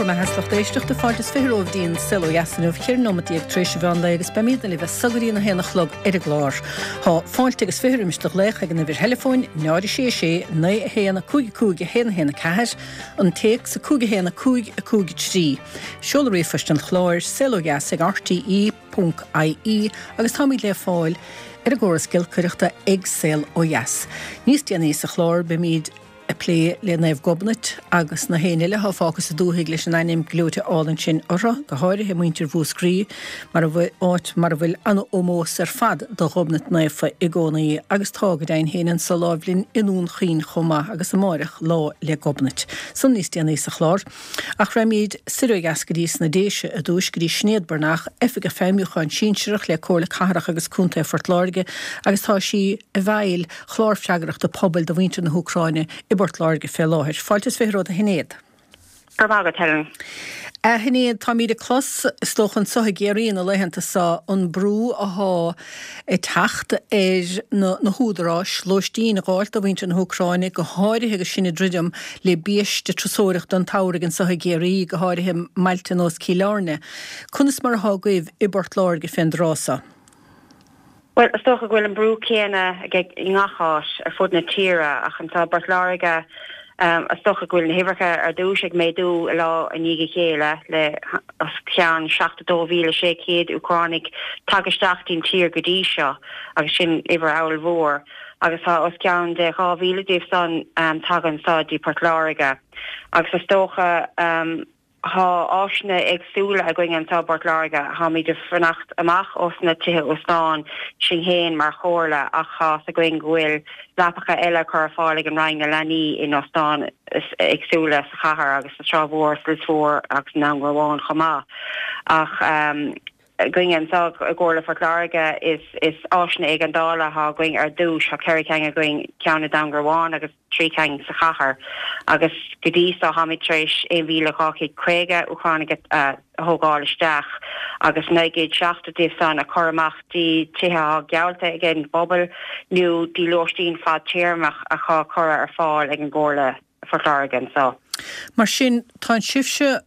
mbeatha is lucht éisteachta, fáilte is 20 romhaibh dtí an Saol Ó Dheas inniu, 14 nóimeat tar éis an mheán lae agus beimídne libh as so go dtí an 1 a chlog ar an gclár. Tá fáilte agus 20 roimis do ghlaoch ag an uimhir theileafóin 0 6 6 9 1 5 5 1 1 4, an téacs 5 1 5 5 3. Seoladh ríomhphoist an chláir, saolodheas ag rte ponc ie agus táimid le fáil ar an gcóras giolcaireachta ag Saol Ó Dheas. Níos déanaí sa chlár beimid ag plé le Naomh Gobnait agus na héinne eile atá fágtha sa dúthaigh leis an ainm gleoite álainn sin orthu, go háirithe muintir Mhúscraí, mar a bhfuil, áit mar a bhfuil an-ómós ar fad do Ghobnait Naofa i gcónaí agus tá go deimhin féin anso láimh linn i nDún Chaoin chomh maith agus amáireach Lá 'le Gobnait. San níos déanaí sa chlár. Ach raghaimid soir ó dheas go dtí sna Déise i dtúis, go dtí Sinéad Breathnach, Oifigeach Feidhmiúcháin Sinsearach le Comhairle Cathrach agus Contae Phort Láirge agus tá sí i bhfeighil Chlár Freagrachta Pobail do mhuintir na hÚcráine i bPort Láirge fé láthair. Fáilte is 20 romhat a Shinéad. Go raibh maith agat, Helen. A Shinéad, táimíd ag clos, is dócha anso i gCiarraí na laethanta so, an brú athá ag teacht ar na húdaráis lóistín a dh'fháilt do mhuintir na hÚcráine, go háirithe agus sinn ag druidim le biaiste turasóireachta an tsamhraidh anso i gCiarraí, go háirithe i mbailte nós Cill Airne. Conas mar athá agaibh i bPort Láirge fén dtráth so? Bhuel, is dócha go bhfuil an brú céanna i ngach áit ar fud na tíre, ach anseo i bPort Láirge, is dócha go bhfuil na huimhreacha ar dtús ag méadú lá i ndiaidh a chéile, le os cionn 72,600 Úcránaigh tagtha isteach dtí'n tír go dtí seo, agus sin uimhir ollmhór, agus tá os cionn de 2,000 díobh san tagtha anseo dtí Port Láirge, agus is dócha. Thá áiseanna éagsúla againn anseo i bPort Láirge. Tháimid ag fanacht amach ós na tithe óstáin sinn fhéin mar chomhairle ach thá's againn go bhfuil leapacha eile curtha ar fáil ag an Roinn na Leanaí in óstáin éagsúla sa chathair agus sa Trá Mhór, sa Lios Mhór agus i nDún Garbhán chomh maith. Ach againn anseo i gComhairle Phort Láirge is is áiseanna éigeandála athá againn ar dtús. Thá 4 ceann againn, ceann i nDún Garbhán agus. 3 cinn sa chathair agus go dtí so tháimid tar éis 1,250 Úcránaigh a thógáil isteach agus 970 díobh san a chur amach dtí tithe athá geallta ag an bpobal nó dtí lóistín fadtéarmach athá curtha ar fáil ag an gComhairle Phort Láirge anso. Mar sin, tá sibhse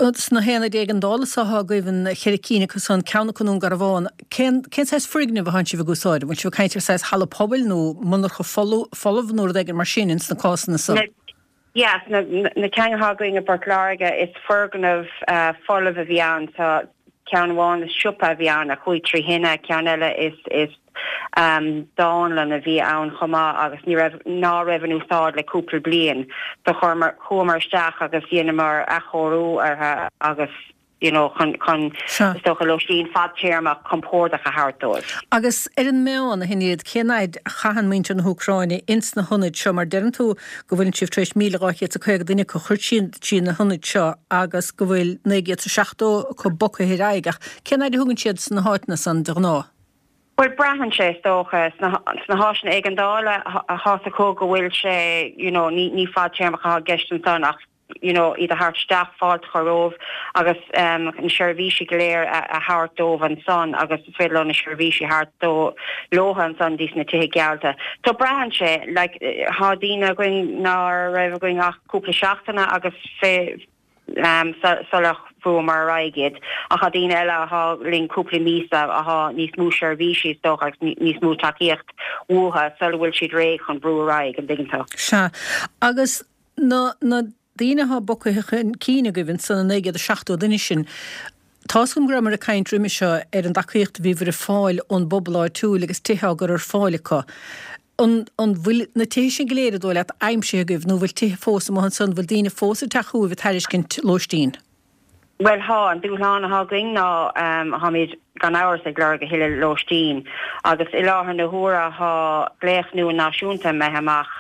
Sna haonaid éigeandála so athá agaibh, an cheithre cinn acu san, ceann acu i nDún Garbhán, cén cén saghas foirgneamh athánn sibh ag úsáid? An bhfuil sibh ag caint ar saghas halla pobail nó monarcha folamh nó rud éigin mar sin ins na cásanna san? Na, yeah, na, na cinn athá againn i bPort Láirge, is foirgneamh folamh a bhí ann. Tá ceann amháin is siopa a bhí ann a chuaigh trí thine, ceann eile is, is dánlann a bhí ann chomh maith agus ní raibh, ná raibh in úsáid le cúpla bliain. So chuamar, chuamar isteach agus dheineamar athchóiriú orthu agus you know chun, chun is dócha lóistín fadtéarmach compordach a thabhairt dóibh. Agus ar an meán, a Shinéad, cén fhaid a chaitheann muintir na hÚcráine ins na hionaid seo mar deireann tú go bhfuileann sibh tar éis 1,250 duine acu a chur trí na hionaid seo agus go bhfuil 970 acu bogtha ar aghaidh ach cén fhaid a thugann siad sna háiteanna san de ghnáth? Bhuel, braitheann sé, is dócha. Sna háiseanna éigeandála, thá's acu go bhfuil sé, you know, ní, ní fadtéarmach atá i gceist ansan ach, you know, iad a thabhairt isteach, fáilte a chur rompu agus na seirbhísí go léir a, a thabhairt dóibh ansan agus is féidir leo na seirbhísí a thabhairt dó, leotha ansan dtí sna tithe geallta. So braitheann sé, like, thá daoine againn ná raibh againn ach cúpla seachtaine agus fé, sular bhrúamar ar aghaidh iad. Ach tá daoine eile athá linn cúpla míosa athá níos mó seirbhísí is dócha agus níos mó tacaíocht uathu sula bhfuil siad réidh chun brú ar aghaidh, an dtuigeann tú? Sea. Agus na na daoine athá bogtha chun cinn agaibh ansan, na 970 duine sin, tá's agam go rabhamar ag caint roimhe seo ar an dtacaíocht a bhíobhair ag fáil ón bpobal áitiúil agus tithe á gcur ar fáil acu. An bhfuil na tithe sin go léir, an dóigh leat, aimsithe agaibh nó an bhfuil tithe fós amuigh ansan, an bhfuil daoine fós ag teacht chugaibh ag tairiscint lóistín? Bhuel, thá. An dúshlán athá againn ná tháimid gan amhras ag lorg a thuilleadh lóistín agus i láthair na huaire thá glaoch nua náisiúnta imithe amach.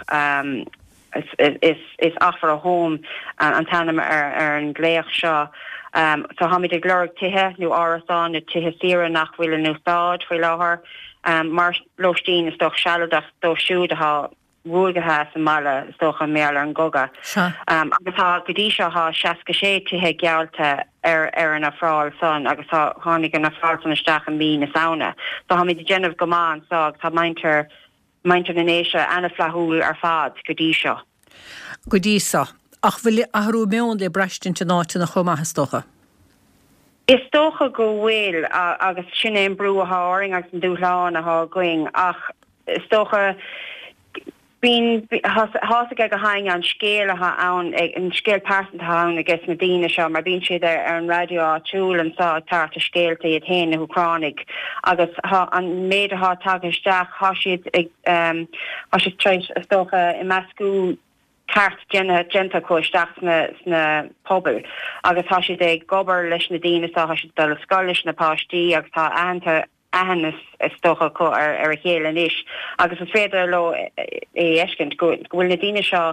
Is Offer a Home an t-ainm ar an nglaoch seo. So tháimid ag lorg tithe nó árasáin nó tithe saoire nach bhfuil in úsáid faoi láthair mar lóistín is dócha sealadach dóibh siúd atá ruaigthe as an mbaile is dócha mar gheall ar an gcogadh. Agus tá, go dtí seo tá 66 tithe geallta ar ar an ofráil san agus tá, tháinig an ofráil san isteach i mí na Samhna. So tháimid ag déanamh go maith anso agus tá muintir Muintir na nDéise ana-fhlaithiúil ar fad go dtí seo. Go dtí seo. Ach bhfuil athrú meoin le braistint in áiteanna chomh maith, is dócha? Is dócha go bhfuil, agus sin é an brú athá orainn agus an dúshlán athá againn, ach is dócha, bíonn, tá's aige gach éinne an scéal athá ann, an scéal pearsanta athá ann ages na daoine seo, mar bíonn siad ar an raidió áitiúil anso ag tabhairt a scéalta iad féin, na hÚcránaigh, agus thá an méid athá tagtha isteach, thá siad ag, thá siad tar éis, is dócha, imeascú ceart déanta déanta acu isteach sna sna pobail agus tá siad ag obair leis na daoine so tá siad ag dul ar scoil leis na páistí agus tá aitheanta aithne is dócha acu ar ar a chéile anois agus is féidir leo é a fheiscint go go bhfuil na daoine seo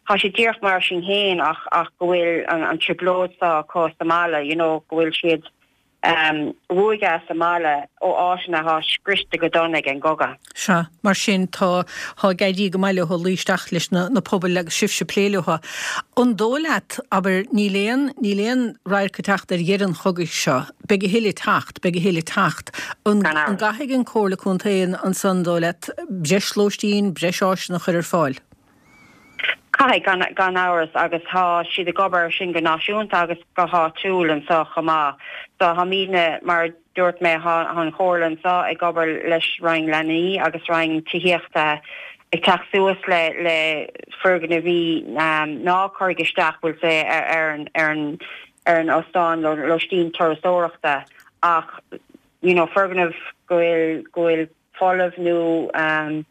tá siad díreach mar sinn féin ach ach go bhfuil an an trioblóid seo acu sa mbaile you know go bhfuil siad ruaigthe as a mbaile ó áiteanna atá scriosta go dona ag an gcogadh. Sea, mar sin, tá, tá ag éirí go maith leo luí isteach leis na, na pobail agus sibhse ag plé leo. An dóigh leat, abair, níl aon, níl aon radharc ag teacht ar dheireadh an chogaidh seo, beidh a thuilleadh ag teacht, beidh a thuilleadh ag teacht. An, an gcaithfidh an Comhairle Contae ansan, an dóigh leat, breis lóistín, breis áiseanna a chur ar fáil? Caithfidh, gan amhras, agus tá siad ag obair ar sin go náisiúnta agus go háitiúil anseo chomh maith. So táimidne, mar a dúirt mé, tá an Chomhairle anseo ag obair leis Roinn Leanaí agus Roinn Tithíochta ag teacht suas le le foirgnimh ná cuireadh isteach, bhfuil sé ar an ar an ar an óstán lóistín turasóireachta ach you know foirgneamh go bhfuil go bhfuil folamh nó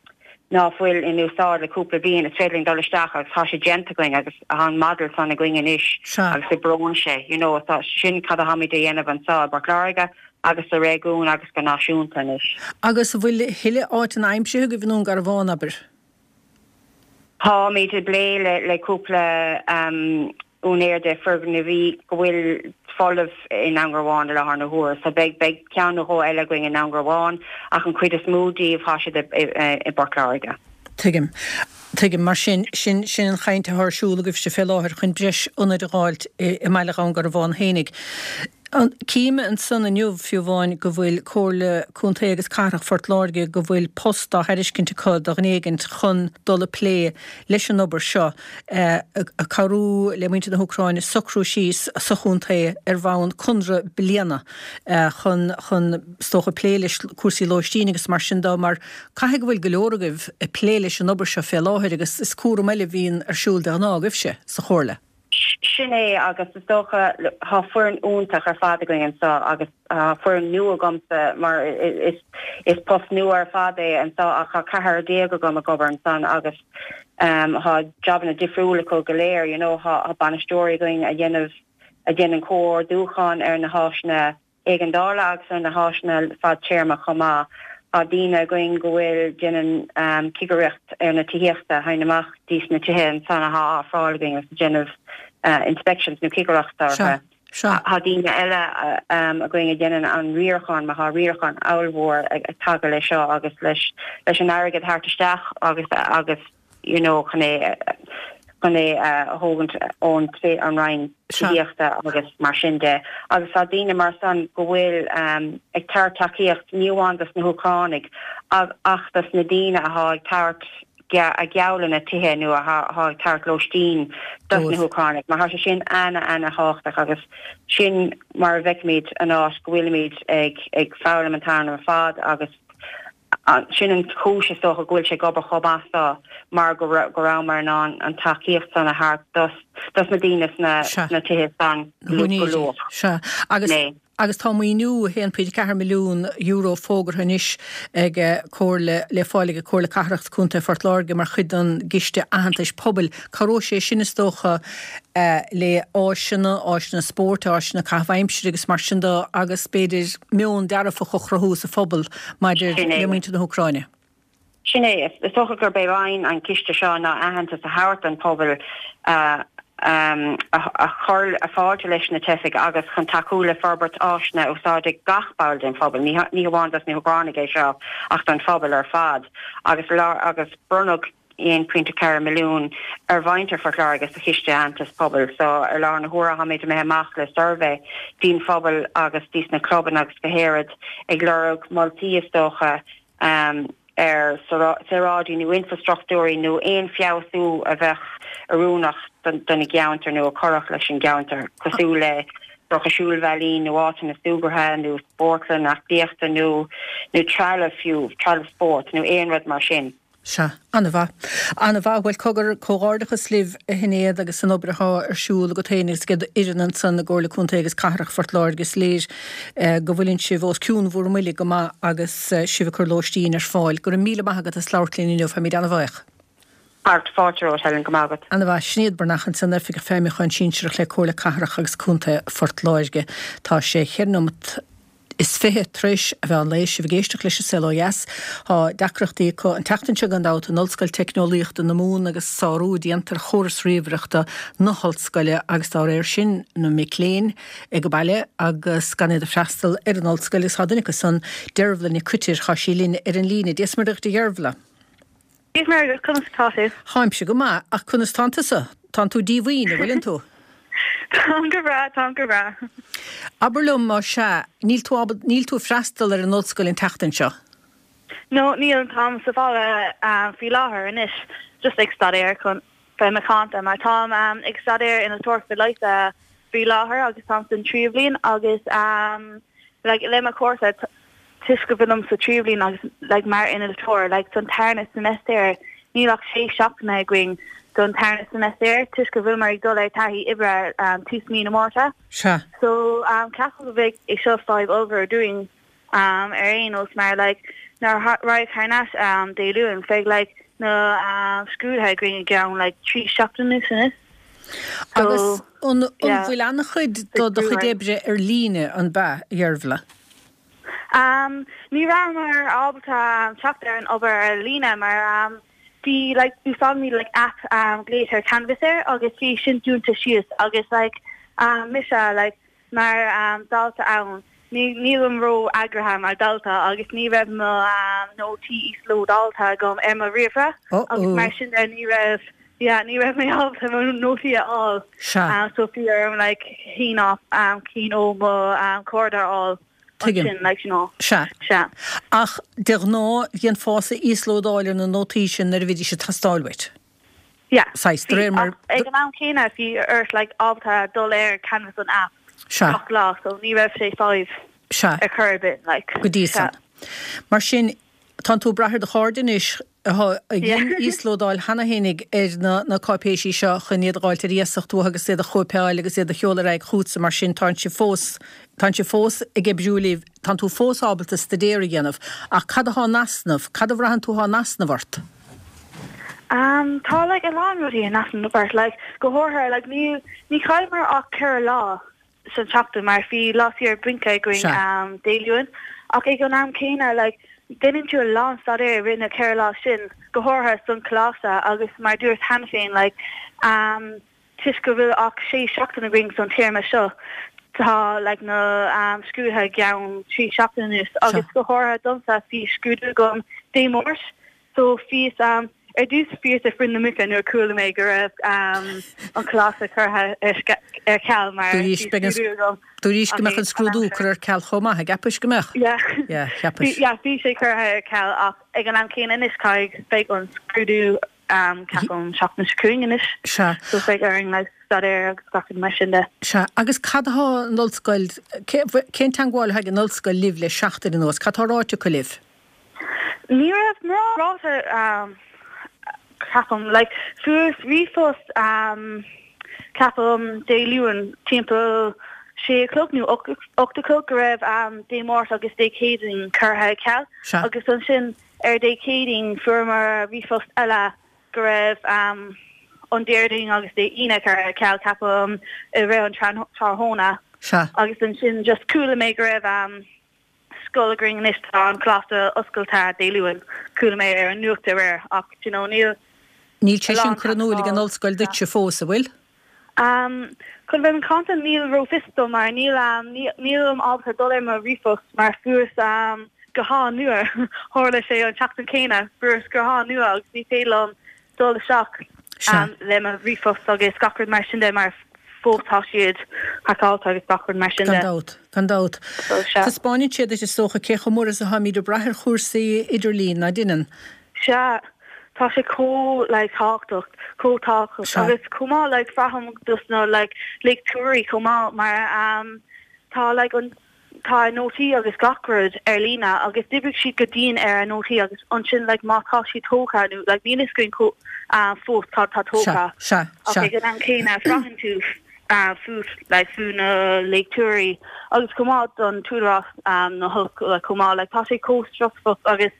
ná fuil in úsáid le cúpla bliain, is féidir linn dul isteach agus tá sé déanta againn agus tá an model san againn anois agus oibreoidh sé, you know, tá sin cad atáimid a dhéanamh anseo i bPort Láirge agus sa réigiún agus go náisiúnta anois. Agus an bhfuil a thuilleadh áiteanna aimsithe agaibh i nDún Garbhán, abair? Táimid ag plé le cúpla úinéir de foirgnimh go bhfuil folamh i nDún Garbhán i láthair na huaire. So beidh beidh ceann nó dhó eile againn i nDún Garbhán ach an chuid is mó díobh tá siad i bPort Láirge. Tuigim. Tuigim. Mar sin, sin sin an chaint atá ar siúl agaibhse fé láthair chun breis ionaid a dh'fháilt i i mbaile Dhún Garbhán fhéinig. Cím ansan inniu, fiú amháin, go bhfuil Comhairle Contae agus Cathrach Phort Láirge, go bhfuil post á thairiscint acu do dhuine éigint chun dul ag plé leis an obair seo, ag cabhrú le muintir na hÚcráine socrú síos sa chontae ar bhonn conradh bliana chun, chun, is dócha, plé leis cúrsaí lóistín agus mar sin de, mar caithfidh go bhfuil go leor agaibh ag plé leis an obair seo fé láthair agus is cúram eile a bhíonn ar siúl de ghnáth agaibhse sa Chomhairle. Sin é agus is dócha, tá foireann iontach ar fad againn anseo agus tá foireann nua agamsa mar is post nua ar fad é anseo ach tá ceathrar agam ag obair ansan agus tá jabanna difriúla acu go léir, you know, tá bainisteoirí againn a dhéanamh, a dhéanann comhordúchán ar na háiseanna éigeandála agus ar na háiseanna fadtéarma chomh maith. Tá daoine againn go bhfuil déanann cigireacht ar na tithíochta, théann amach dtí sna tithe ansan athá á ofráil againn agus déanamh inspections nó cigireacht orthu. Tá daoine eile againn a dhéanann an riarachán mar tá riarachán ollmhór ag tagadh leis seo agus leis an airgead theacht isteach agus agus you know, chun é, chun é a thógaint ón an Roinn Tithíochta agus mar sin de. Agus tá daoine mar san go bhfuil ag tabhairt tacaíocht ní amháin dos na hÚcránaigh ach dos na daoine athá ag tabhairt a geallanna tithe nó athá ag tabhairt lóistín dos na hÚcránaigh mar tá sé sin ana ana thábhachtach agus sin mar a bhfeicimid an áit go bhfuilimid ag ag foghlaim an t-am ar fad agus Sin an chúis, is dócha, go bhfuil sé ag obair chomh maith so, mar go rabhamar in ann an tacaíocht san a thabhairt dos dos na daoine sna tithe san go luath. Sea. Agus agus tá maoiniú €1.4 milliún fógartha anois ag Comhairle, le fáil ag Comhairle Cathrach 's Contae Phort Láirge mar chuid den gCiste Aitheantais Pobail. Cabhróidh sé sin, is dócha, le áiseanna, áiseanna spóirt, áiseanna caitheamh aimsire agus mar sin de agus b'fhéidir meon dearfach a chruthú sa phobal maidir le muintir na hÚcráine. Sin é. Is dócha gurb é aidhm an chiste seo ná aitheantas a thabhairt don phobal a chuir fáilte leis na teifigh agus chun tacú le forbairt áiseanna a úsáidfidh gach ball den phobal, ní hamháin dos na hÚcránaigh é seo ach don phobal ar fad agus agus bronnadh 1.4 milliún ar mhuintir Phort Láirge sa Chiste Aitheantais Pobail. So ar láthair na huaire táimid imithe amach le suirbhé dtí'n phobal agus dtís na clubanna agus go háirid ag lorg moltaí is dócha. ar saoráidí nó infrastruchtúirí nó aon feabhsú a bheadh oiriúnach don gceantar nó a chuirfeadh leis an gceantar, cosúil le dócha siúlbhealaí nó áiteanna súgartha nó spórtlann aclaíochta nó nó trealamh fiú, trealamh spóirt nó aon rud mar sin. Sea, an-mhaith. An-mhaith. Bhuel, cogar, comhghairdeachas libh, a Shinéad, agus an obair athá ar siúl agat féin agus ag d'fhoireann ansan i gComhairle Contae agus Cathrach Phort Láirge. Is léir go bhfuileann sibh os cionn bhur mbuille go maith agus sibh ag cur lóistín ar fáil. Go raibh míle maith agat as labhairt linn inniu. Táimid an-bhaoch. Art, Fáilte romhat, Helen. Go maith agat. An-mhaith. Sinéad Breathnach ansan, Oifigeach Feidhmiúcháin Sinsearach le Comhairle Cathrach agus Contae Phort Láirge. Tá sé cheithre nóimeat is 20 tar éis a mheán lae, sibh ag éisteacht leis An Saol Ó Dheas. Tá deacrachtaí acu an tseachtain seo gan dabht in Ollscoil Teicneolaíochta na Mumhan agus sárú déanta ar chóras ríomhaireachta na hollscoile agus dá réir sin na mic léinn ag baile agus gan iad ag freastal ar an ollscoil agus tá duine acu san, Dervla Nic Coitir, tá sí linn ar an líne. Dia is Muire dhuit a Dheirbhla. Dia is Muire dhuit, conas atá tú? Táimse go maith, ach conas tánn tusa? Tánn tú díomhaoin, an bhfuileann tú? Táim go breá, táim go breá. Abair liom, más ea, níl tú ábalta, níl tú ag freastal ar an ollscoil an tseachtain seo? No, níl, táim sa bhaile faoi láthair anois, just ag staidéar chun bheith macánta, mar táim ag staidéar innealtóireachta leighis faoi láthair agus táim san tríú bhliain agus like le mo chúrsa, toisc go bhfuilim sa tríú bliain agus like mar innealtóir like don tarna seimeastar níl ach sé seachtaine againn don tarna seimeastar toisc go bhfuileamar ag dul ar taithí oibre um, tús mí na Márta. Sea. So um, ceapaim go bheidh é seo fadhb ollmhór dúinn um, ar aon nós mar like nuair a raghaidh thar n-ais um, Dé Luain beidh like na um, scrúduithe againn i gceann like 3 seachtaine anois. So, Agus an, an yeah, bhfuil an-chuid do do chuid oibre ar líne an b'ea, a Dheirbhla? Ní rabhamar ábalta teacht ar an obair ar líne mar bhí like úsáidimid like app glaoitear Canvas air agus bhí sin dúnta síos agus like mise like mar dalta ann ní nílim ró eagraithe mar dalta agus ní raibh mo nótaí íoslódáilte agam ar mo ríomhaire agus mar sin de ní raibh yeah ní raibh mé ábalta mo nótaí a fháil. Sea. So bhí orm like cinn cinn ó mo chairde a fháil Tuigim. ansin like you know. Sea. Sea. Ach de ghnáth dhéanfása íoslódáil ar na nótaí sin nuair a bhídís ag teastáil uait. Yeah. Saghas, de réir mar. Ach ag an am céanna bhí ort like ábalta dul ar Canvas an app Sea. gach lá so ní raibh sé fadhb Sea. ar chor ar bith like. Go dtí Sea. san. Mar sin, tánn tú ag brath ar do chairde anois a dhein íoslódáil cheana fhéinig ar na cáipéisí seo chun iad a dh'fháilt ar iasacht uathu agus iad a chóipeáil agus iad a sheoladh ar aghaidh chugatsa, mar sin tánn sibh fós, tánn sibh fós ag oibriú libh, tánn tú fós ábalta staidéar a dhéanamh. Ach cad athá in easnamh, cad a bhraitheann tú athá in easnamh ort? Tá like a lán rudaí in easnamh ort, like go háirithe like ní, ní chailleamar ach 4 lá san tseachtain mar bhí lá saor bainc againn Dé Luain ach ag an am céanna like déanann tú a lán staidéir i rith na 4 lá sin, go háirithe san coláiste agus mar dúirt cheana féin like toisc go bhfuil ach 6 seachtain againn san téarma seo tá like na scrúduithe i gceann 3 seachtain anuas agus go háirithe domsa bhí scrúdú agam Dé Máirt So bhíos, ar dtús bhíos ag bruith na muice nuair a chuala mé go raibh an coláiste curtha ar ceal mar bhí scrúdú agam. Dúraís go mbeadh an scrúdú curtha ar ceal chomh maith, an gceapais go mbeadh? Yeah. Yeah, cheapais. Yeah, bhí sé curtha ar ceal ach ag an am céanna anois caithfidh, beidh an scrúdú ceapaim seachtain seo chugainn anois. Sea. So beidh orainn like staidéar agus gach rud mar sin de. Sea, agus cad atá an ollscoil, cén teangmháil atá ag an ollscoil libh le seachtain anuas, cad tá ráite acu libh? Ní raibh mórán ráite ceapaim. Like fuaireas ríomhphost ceapaim Dé Luain timpeall sé a chlog nó 8 a chlog go raibh Dé Máirt agus Dé Céadaoin curtha ar ceal agus ansin ar Dé Céadaoin fuaireamar ríomhphost eile go raibh an Déardaoin agus Dé Aoine curtha ar ceal ceapaim i rith an tráthnóna agus ansin just chuala mé go raibh scoil againn anois tá an coláiste oscailte Dé Luain. Chuala mé ar an nuacht aréir ach do you know níl Níl sé sin curtha in iúl ag an ollscoil duitse fós, an bhfuil? Um chun bheith macánta níl ró-fhios dom mar níl um nílim ábalta dul ar mo ríomhphost mar fuaireas um guthán nua tharla sé an tseachtain céanna fuaireas guthán nua agus ní féidir liom dul isteach um le mo ríomhphost agus gach rud mar sin de mar. fós tá siad haiceáilte agus gach rud mar sin de. Gan dabht, gan dabht. So, sea. Taispeáineann sé duit is dócha cé chomh mór is atáimid ag brath ar chúrsaí idirlín, ná deineann? Sea, tá sé chomh like tábhachtach, chomh tábhachtach. Sea. Agus chomh maith like braithim dos na like léachtóirí chomh maith mar um tá like an tá a nótaí agus gach rud ar líne agus d'oibrigh siad go dian ar a nótaí agus ansin like má tá siad tógtha nó like níl fhios againn chomh ah fós cad tá tógtha Sea, sea, ach sea. ag an am céanna braitheann tú ah fút like fú na léachtóirí agus chomh maith don t-údarás ah na hollscoile chomh maith like tá sé chomh stressful agus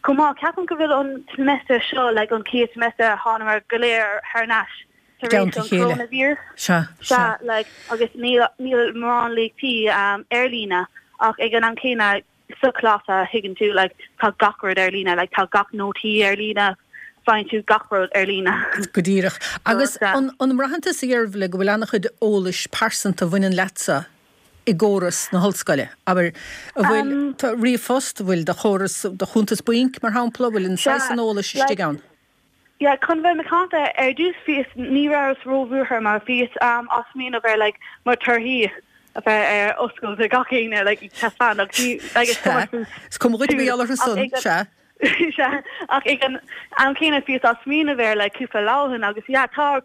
chomh maith ceapaim go bhfuil an semester seo like an chéad semester a thánamar go léir thar n-ais tar éis an coronavirus. Sea, sea. Like, agus níl, níl mórán léachtaí ar líne ach ag an am céanna sa choláiste thuigeann tú, like, tá gach rud ar líne, like, tá gach nótaí ar líne, faigheann tú gach rud ar líne. Go díreach. Agus an, an mbraitheann tusa, a Dheirbhile, go bhfuil an-chuid eolais pearsanta a bhaineann leatsa i gcóras na hollscoile? Abair, an bhfuil do ríomhphost, an bhfuil do chóras, do chuntas bainc, mar shampla, an bhfuil an saghas san eolais istigh ann? Yeah, chun bheith macánta, ar dtús bhíos, ní rabhas ró-bhuartha mar bhíos á smaoineamh ar like mo torthaí a bheith ar oscailt do gach éinne like ag taispeáint agus ní like is cuma Sea, is cuma dhuit mar gheall orthu san, sea. Sea, ach ag an am céanna bhíos á smaoineamh air like cúpla lá ó shin agus yeah tá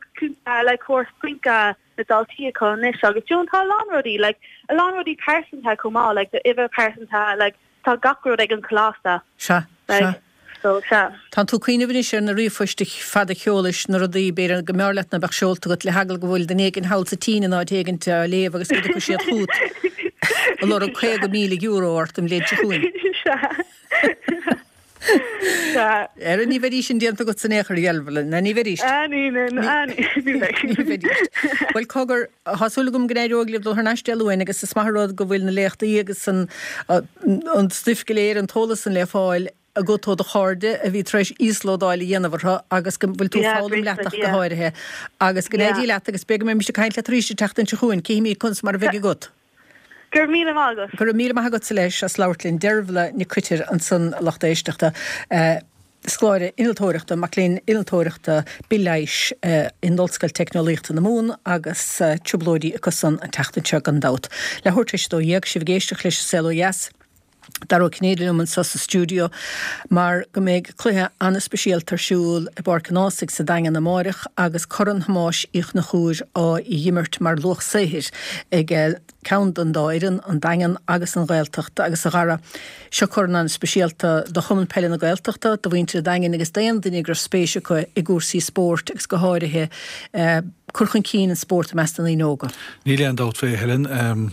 like córas bainc na daltaí acu anois agus you know tá a lán rudaí like a lán rudaí pearsanta chomh maith like d'uimhir pearsanta like tá gach rud ag an choláiste. Sea, like, sea. So, sea. Tánn tú ag cuimhneamh anois ar na ríomhphoist fada a sheolais, na rudaí, b'fhéidir, go mb'fhearr leat ná beadh seolta agat, le heagla go bhfuil duine éigin thall sa tSín in áit éigint á léamh agus go dtiocfaidh siad chugat ag lorg €50,000 ort an bhliain seo chugainn. Sea. Sea. Ara ní bheidís sin déanta agat in aon chor, a Dheirbhile, ná ní bheidís. Ah, ní, ní, ní, ní bheidh. Ní bheidís. Bhuel, cogar, tá súil agam go n-éireoidh libh dul thar n-ais Dé Luain agus is maith an rud go bhfuil na léachtaí agus an, an stuif go léir, an t-eolas san le fáil agat ó do chairde a bhí tar éis íoslódáil a dhéanamh orthu agus go bhfuil tú ag foghlaim leat ach go háirithe. Agus go n-éirí leat agus b'fhéidir go mbeimid ag caint leat arís an tseachtain seo chugainn, cífimid conas mar a bheidh agat. Go raibh míle maith agat. Go raibh míle maith agatsa leis as labhairt linn. Deirbhile Nic Coitir ansan a lucht éisteachta. Scoláire innealtóireachta, mac léinn innealtóireachta bithleighis in Ollscoil Teicneolaíochta na Mumhan agus trioblóidí acu san an tseachtain seo gan dabht. Leathuair tar éis a 12, sibh ag éisteacht leis An Saol Ó Dheas. Dara Ó Cinnéide liom anseo sa stiúideo mar go mbeidh cluiche an-speisialta ar siúl i bPáirc an Ághasaigh sa Daingean amáireach agus Corn Thomáis Uí Chonchúir á dh'imirt mar luach saothair ag ceann den dá fhoireann, an Daingean agus an Ghaeltacht. Agus a Dhara, seo corn an-speisialta do Chumann Peile na Gaeltachta, do mhuintir an Daingin agus d'aon duine go raibh spéis acu i gcúrsaí spóirt agus go háirithe cur chun cinn an spóirt i measc na ndaoine óga. Níl aon dabht fé, Helen.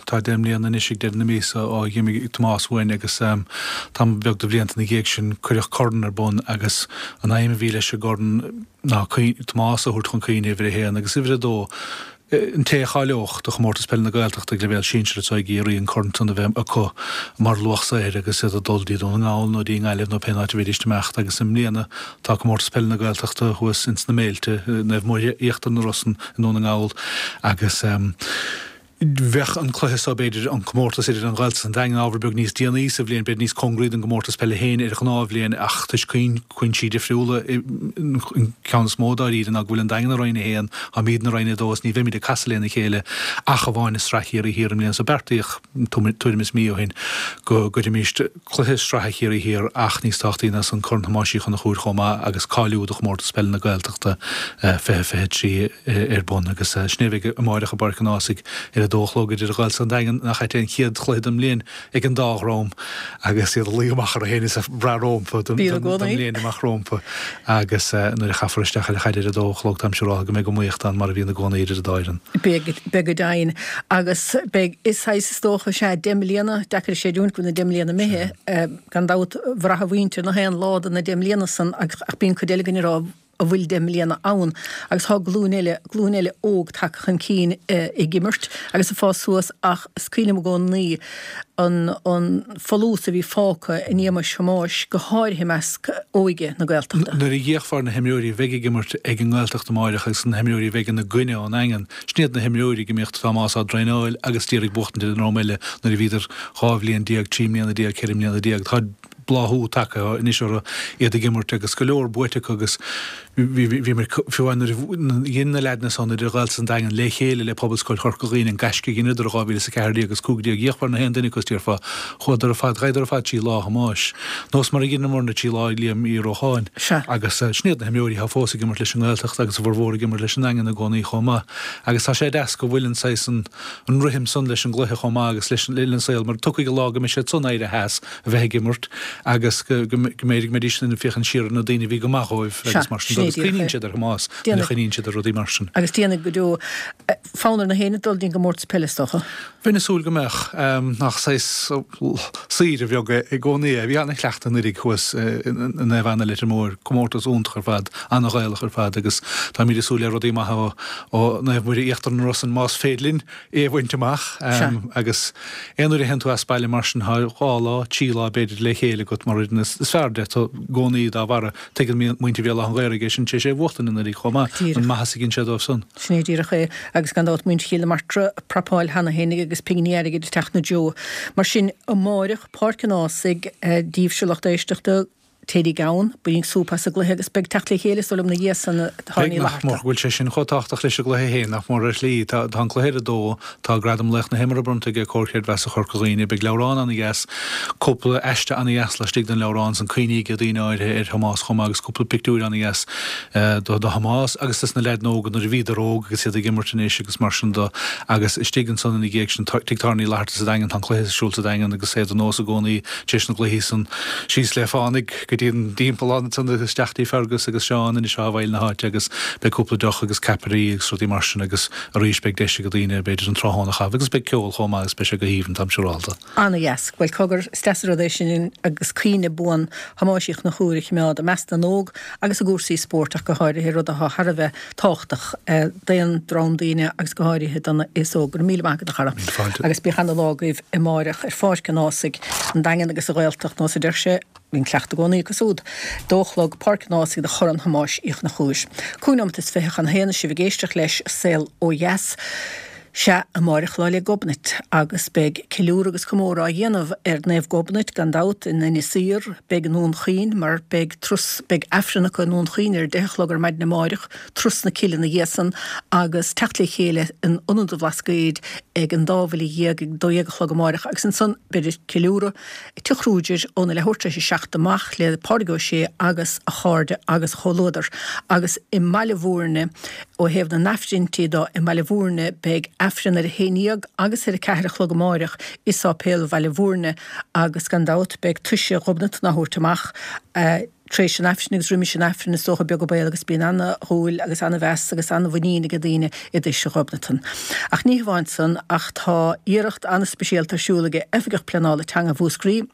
Tá 10 mbliana anois ag deireadh na míosa ó dh'imigh Tomás uainn agus tamall beag de bhlianta ina dhiaidh sin cuireadh corn ar bun agus an aidhm a bhí leis an gcorn ná Tomás a thabhairt chun cuimhne uimhir a haon agus uimhir a dó An té a cháileodh do Chomórtas Peile na Gaeltachta ag leibhéal sinsir anseo i gCiarraí an corn san a bheith acu mar luach saothair agus iad ag dul dtí Dún na nGall nó dtí an nGaillimh nó pén áit a bheidís ag imeacht agus i mbliana tá Comórtas Peile na Gaeltachta thuas ins na Méilte, Naomh Muire Íochtar na Rosann i nDún na nGall agus bheadh an cluiche so, b'fhéidir, an comórtas idir an Ghaeltacht is an Daingean ábhar beag níos déanaí sa bhliain, b'fhéidir níos cóngaraí don gcomórtas peile féin ar ghnáthbhliain ach toisc cúinsí difriúla, an ceann is mó dáiríre ná go bhfuil an Daingean i Roinn 1, Táimidne i Roinn 2 is ní bheimid ag casadh lena chéile ach amháin i Sraith Chiarraí Thiar i mbliana so beartaíodh tuairim is mí ó shin go gcuirfimís cluiche sraithe Chiarraí Thiar ach níos tábhachtaí ná san Corn Thomáis Uí Chonchúir chomh maith agus cáiliú do Chomórtas Peile na Gaeltachta 2023 ar bun agus sin é a bheidh amáireach i bPáirc an Ághasaigh ar a dó a chlog idir an Ghaeltacht is an Daingean nach ait é an chéad chluiche den mbliain ag an dá dhream agus iad ag luí amach orthu féin is ag brath rómpa don mbliain amach rómpa agus nuair a chaithfear isteach ar an chaid ar a dó a chlog táim siúráltha go mbeidh iomaíocht ann mar a bhíonn i gcónaí idir an dá fhoireann. Beidh, beidh go deimhin. Agus beidh, is saghas is dócha, sea, 10 mbliana, deacair a chreidiúint go bhfuil na 10 mbliana imithe, gan dabht bhraith a mhuintir nach aon lá de na 10 mbliana san ach bíonn cuid eile againn ag rá, an bhfuil 10 mbliana ann agus tá glúin eile, glúin eile óg tagtha chun cinn ag imirt agus ag fás suas ach is cuimhin liom i gcónaí an, an folús a bhí fágtha in éagmais Thomáis, go háirithe i measc óige na Gaeltachta. Nuair a d'fhéachfá ar na himreoirí a bheidh ag imirt ag an nGaeltacht amáireach agus na himreoirí a bheidh ina gcoinne ón nDaingean, sin iad na himreoirí go mbíodh Tomás á dtraenáil agus d'iarraidh buachtaint ar an ndream eile nuair a bhíodar 12 bhliain, 13 mbliana, 14 mbliana. Tá. bláthú tagtha anois orthu, iad ag imirt agus go leor buaite acu agus bhí mé, fiú amháin nuair a dhein na leaideanna san idir Ghaeltacht is an Daingean le chéile le Pobalscoil Chorca Dhuibhne an gaisce a dheineadar i 2014 agus 15 d'fhíochmhar na haon duine acu is déarfá, chuadar ar fad, ghabhadar ar fad trí Lá Thomáis. Nós mar a dheineamarna trí Lá Liam Uí Rócháin. Agus sin iad na himreoirí atá fós ag imirt leis an nGaeltacht agus a bhformhór ag imirt leis an nDaingean i gcónaí chomh maith. Agus tá sé deas go bhfuil an saghas an an rithim san leis an gcluiche chomh maith agus leis an saol mar tiocfaidh an lá go mbeidh siad san éirithe as a bheith ag imirt agus go mb'fhéidir go mbeidís ag féachaint siar ar na daoine a bhí go maith dhóibh agus mar sin de agus cuimhníonn siad ar Thomás nuair a chuimhníonn siad ar rudaí mar sin. Agus déanfaidh go deo. Fonn ar na héinne dul dtí'n gcomórtas peile is dócha. Bheinn ag súil go mbeadh. Nach saghas saoire bheag é i gcónaí é. Bhí ana-chleachtadh anuraidh thuas i Naomh Anna Leitir Móir, comórtas iontach ar fad, ana-Ghaelach ar fad agus táimid ag súil le rudaí maithe ó Naomh Muire Íochtar na Rosann más féidir linn é a bhaint amach. Agus aon uair a théann tú as baile mar sin tá dhá lá, trí lá b'fhéidir le chéile agat mar fhoireann is fearr de i gcónaí dá bharra. Tuigeann muintir Bhéal Átha an Ghaorthaidh é sin tar éis é a bhuachtain anuraidh chomh maith, an maitheas a dhein sé dóibh san. Sin é díreach é. Agus gan dabht muintir Chill na Martra ag prapáil cheana fhéinig agus pinginí airgid ag teacht ina dtreo. Mar sin, amáireach, Páirc an Ághasaigh, daoibhse lucht éisteachta, téiríg ann, bainigí súp as an gcluiche agus beidh teacht le chéile is dóigh liom ina dhiaidh san a Beidh, Uí nach mór go bhfuil sé sin chomh tábhachtach leis an gcluiche féin, nach mór ar shlí. Tá an cluiche ar a dó, tá Gradam Laoch na hImeartha bronnta ag Comhar Creidmheasa Chorca Dhuibhne, beidh leabhrán ana-dheas, cúpla aiste ana-dheas laistigh den leabhrán san, cuimhní ag daoine áirithe ar Thomás chomh maith agus cúpla pictiúir ana-dheas do Thomás agus dos na leaideanna óga nuair a bhíodar óg agus iad ag imirt anois agus mar sin do agus istigh ansan ina dhiaidh sin Tigh Táirne Uí Fhlatharta sa Daingean tá an cluiche ar siúl sa Daingean agus é de nós i gcónaí tar éis na gcluichí san síos le fánaidh go dtí an dtimpeallán ansan agus isteach dtí Fergus agus Seán anois atá i bhfeighil na háite agus beidh cúpla deoch agus ceapairí agus rudaí mar sin agus arís beidh deis ag daoine b'fhéidir an tráthnóna a chaitheamh agus beidh ceol chomh maith agus beidh sé go haoibhinn táim siúrálta. Ana-dheas. Bhuel, cogar, is deas an rud é sin agus cuimhne buan Thomáis Uí Chonchúir a choimeád i measc na n-óg agus i gcúrsaí spóirt ach go háirithe, rud atá thar a bheith tábhachtach d'aon dream daoine agus go háirithe don aos óg. Go raibh míle maith agat, a chara. Míle fáilte. Agus bíodh ana-lá agaibh amáireach ar Pháirc an Ághasaigh, an Daingean agus an Ghaeltacht, nós a deir sé. Bíonn cleachtadh i gcónaí acu súd. Dó a chlog, Páirc an Ághasaigh do Chorn Thomáis Uí Chonchúir. 25 nóimeat chun a haon sibh ag éisteacht leis Saol Ó Dheas. Sea, amáireach Lá 'le Gobnait agus beidh ceiliúradh agus comóradh á dhéanamh ar Naomh Gobnait gan dabht in Inis Oírr, beidh i nDún Chaoin mar beidh turas, beidh Aifreann acu i nDún Chaoin ar a deich a chlog ar maidin amáireach, Turas na Cille ina dhiaidh san agus teacht le chéile in Ionad an Bhlascaoid ag an dá bhuille dhéag ag 12 a chlog amáireach agus ansan beidh ceiliúradh i Tigh Kruger óna leathuair tar éis a 7 amach le Pádraig Ó Sé agus a chairde agus a chomhluadar. Agus i mBaile Bhúirne, ó thaobh na n-aifrinntí do, i mBaile Bhúirne beidh Aifreann ar a haon dhéag agus ar a ceathair a chlog amáireach i Sáipéal Bhaile Bhúirne agus gan dabht beidh Toise Ghobnatan á thabhairt amach. Tar éis an Aifrinn agus roimis an Aifreann is dócha beag an baol agus bíonn ana-dhúil agus ana-mheas agus ana-mhuinín ag daoine i dToise Ghobnatan. Ach ní hamháin san ach tá iarracht ana-speisialta ar siúl ag Oifigeach Pleanála Teanga Mhúscraí,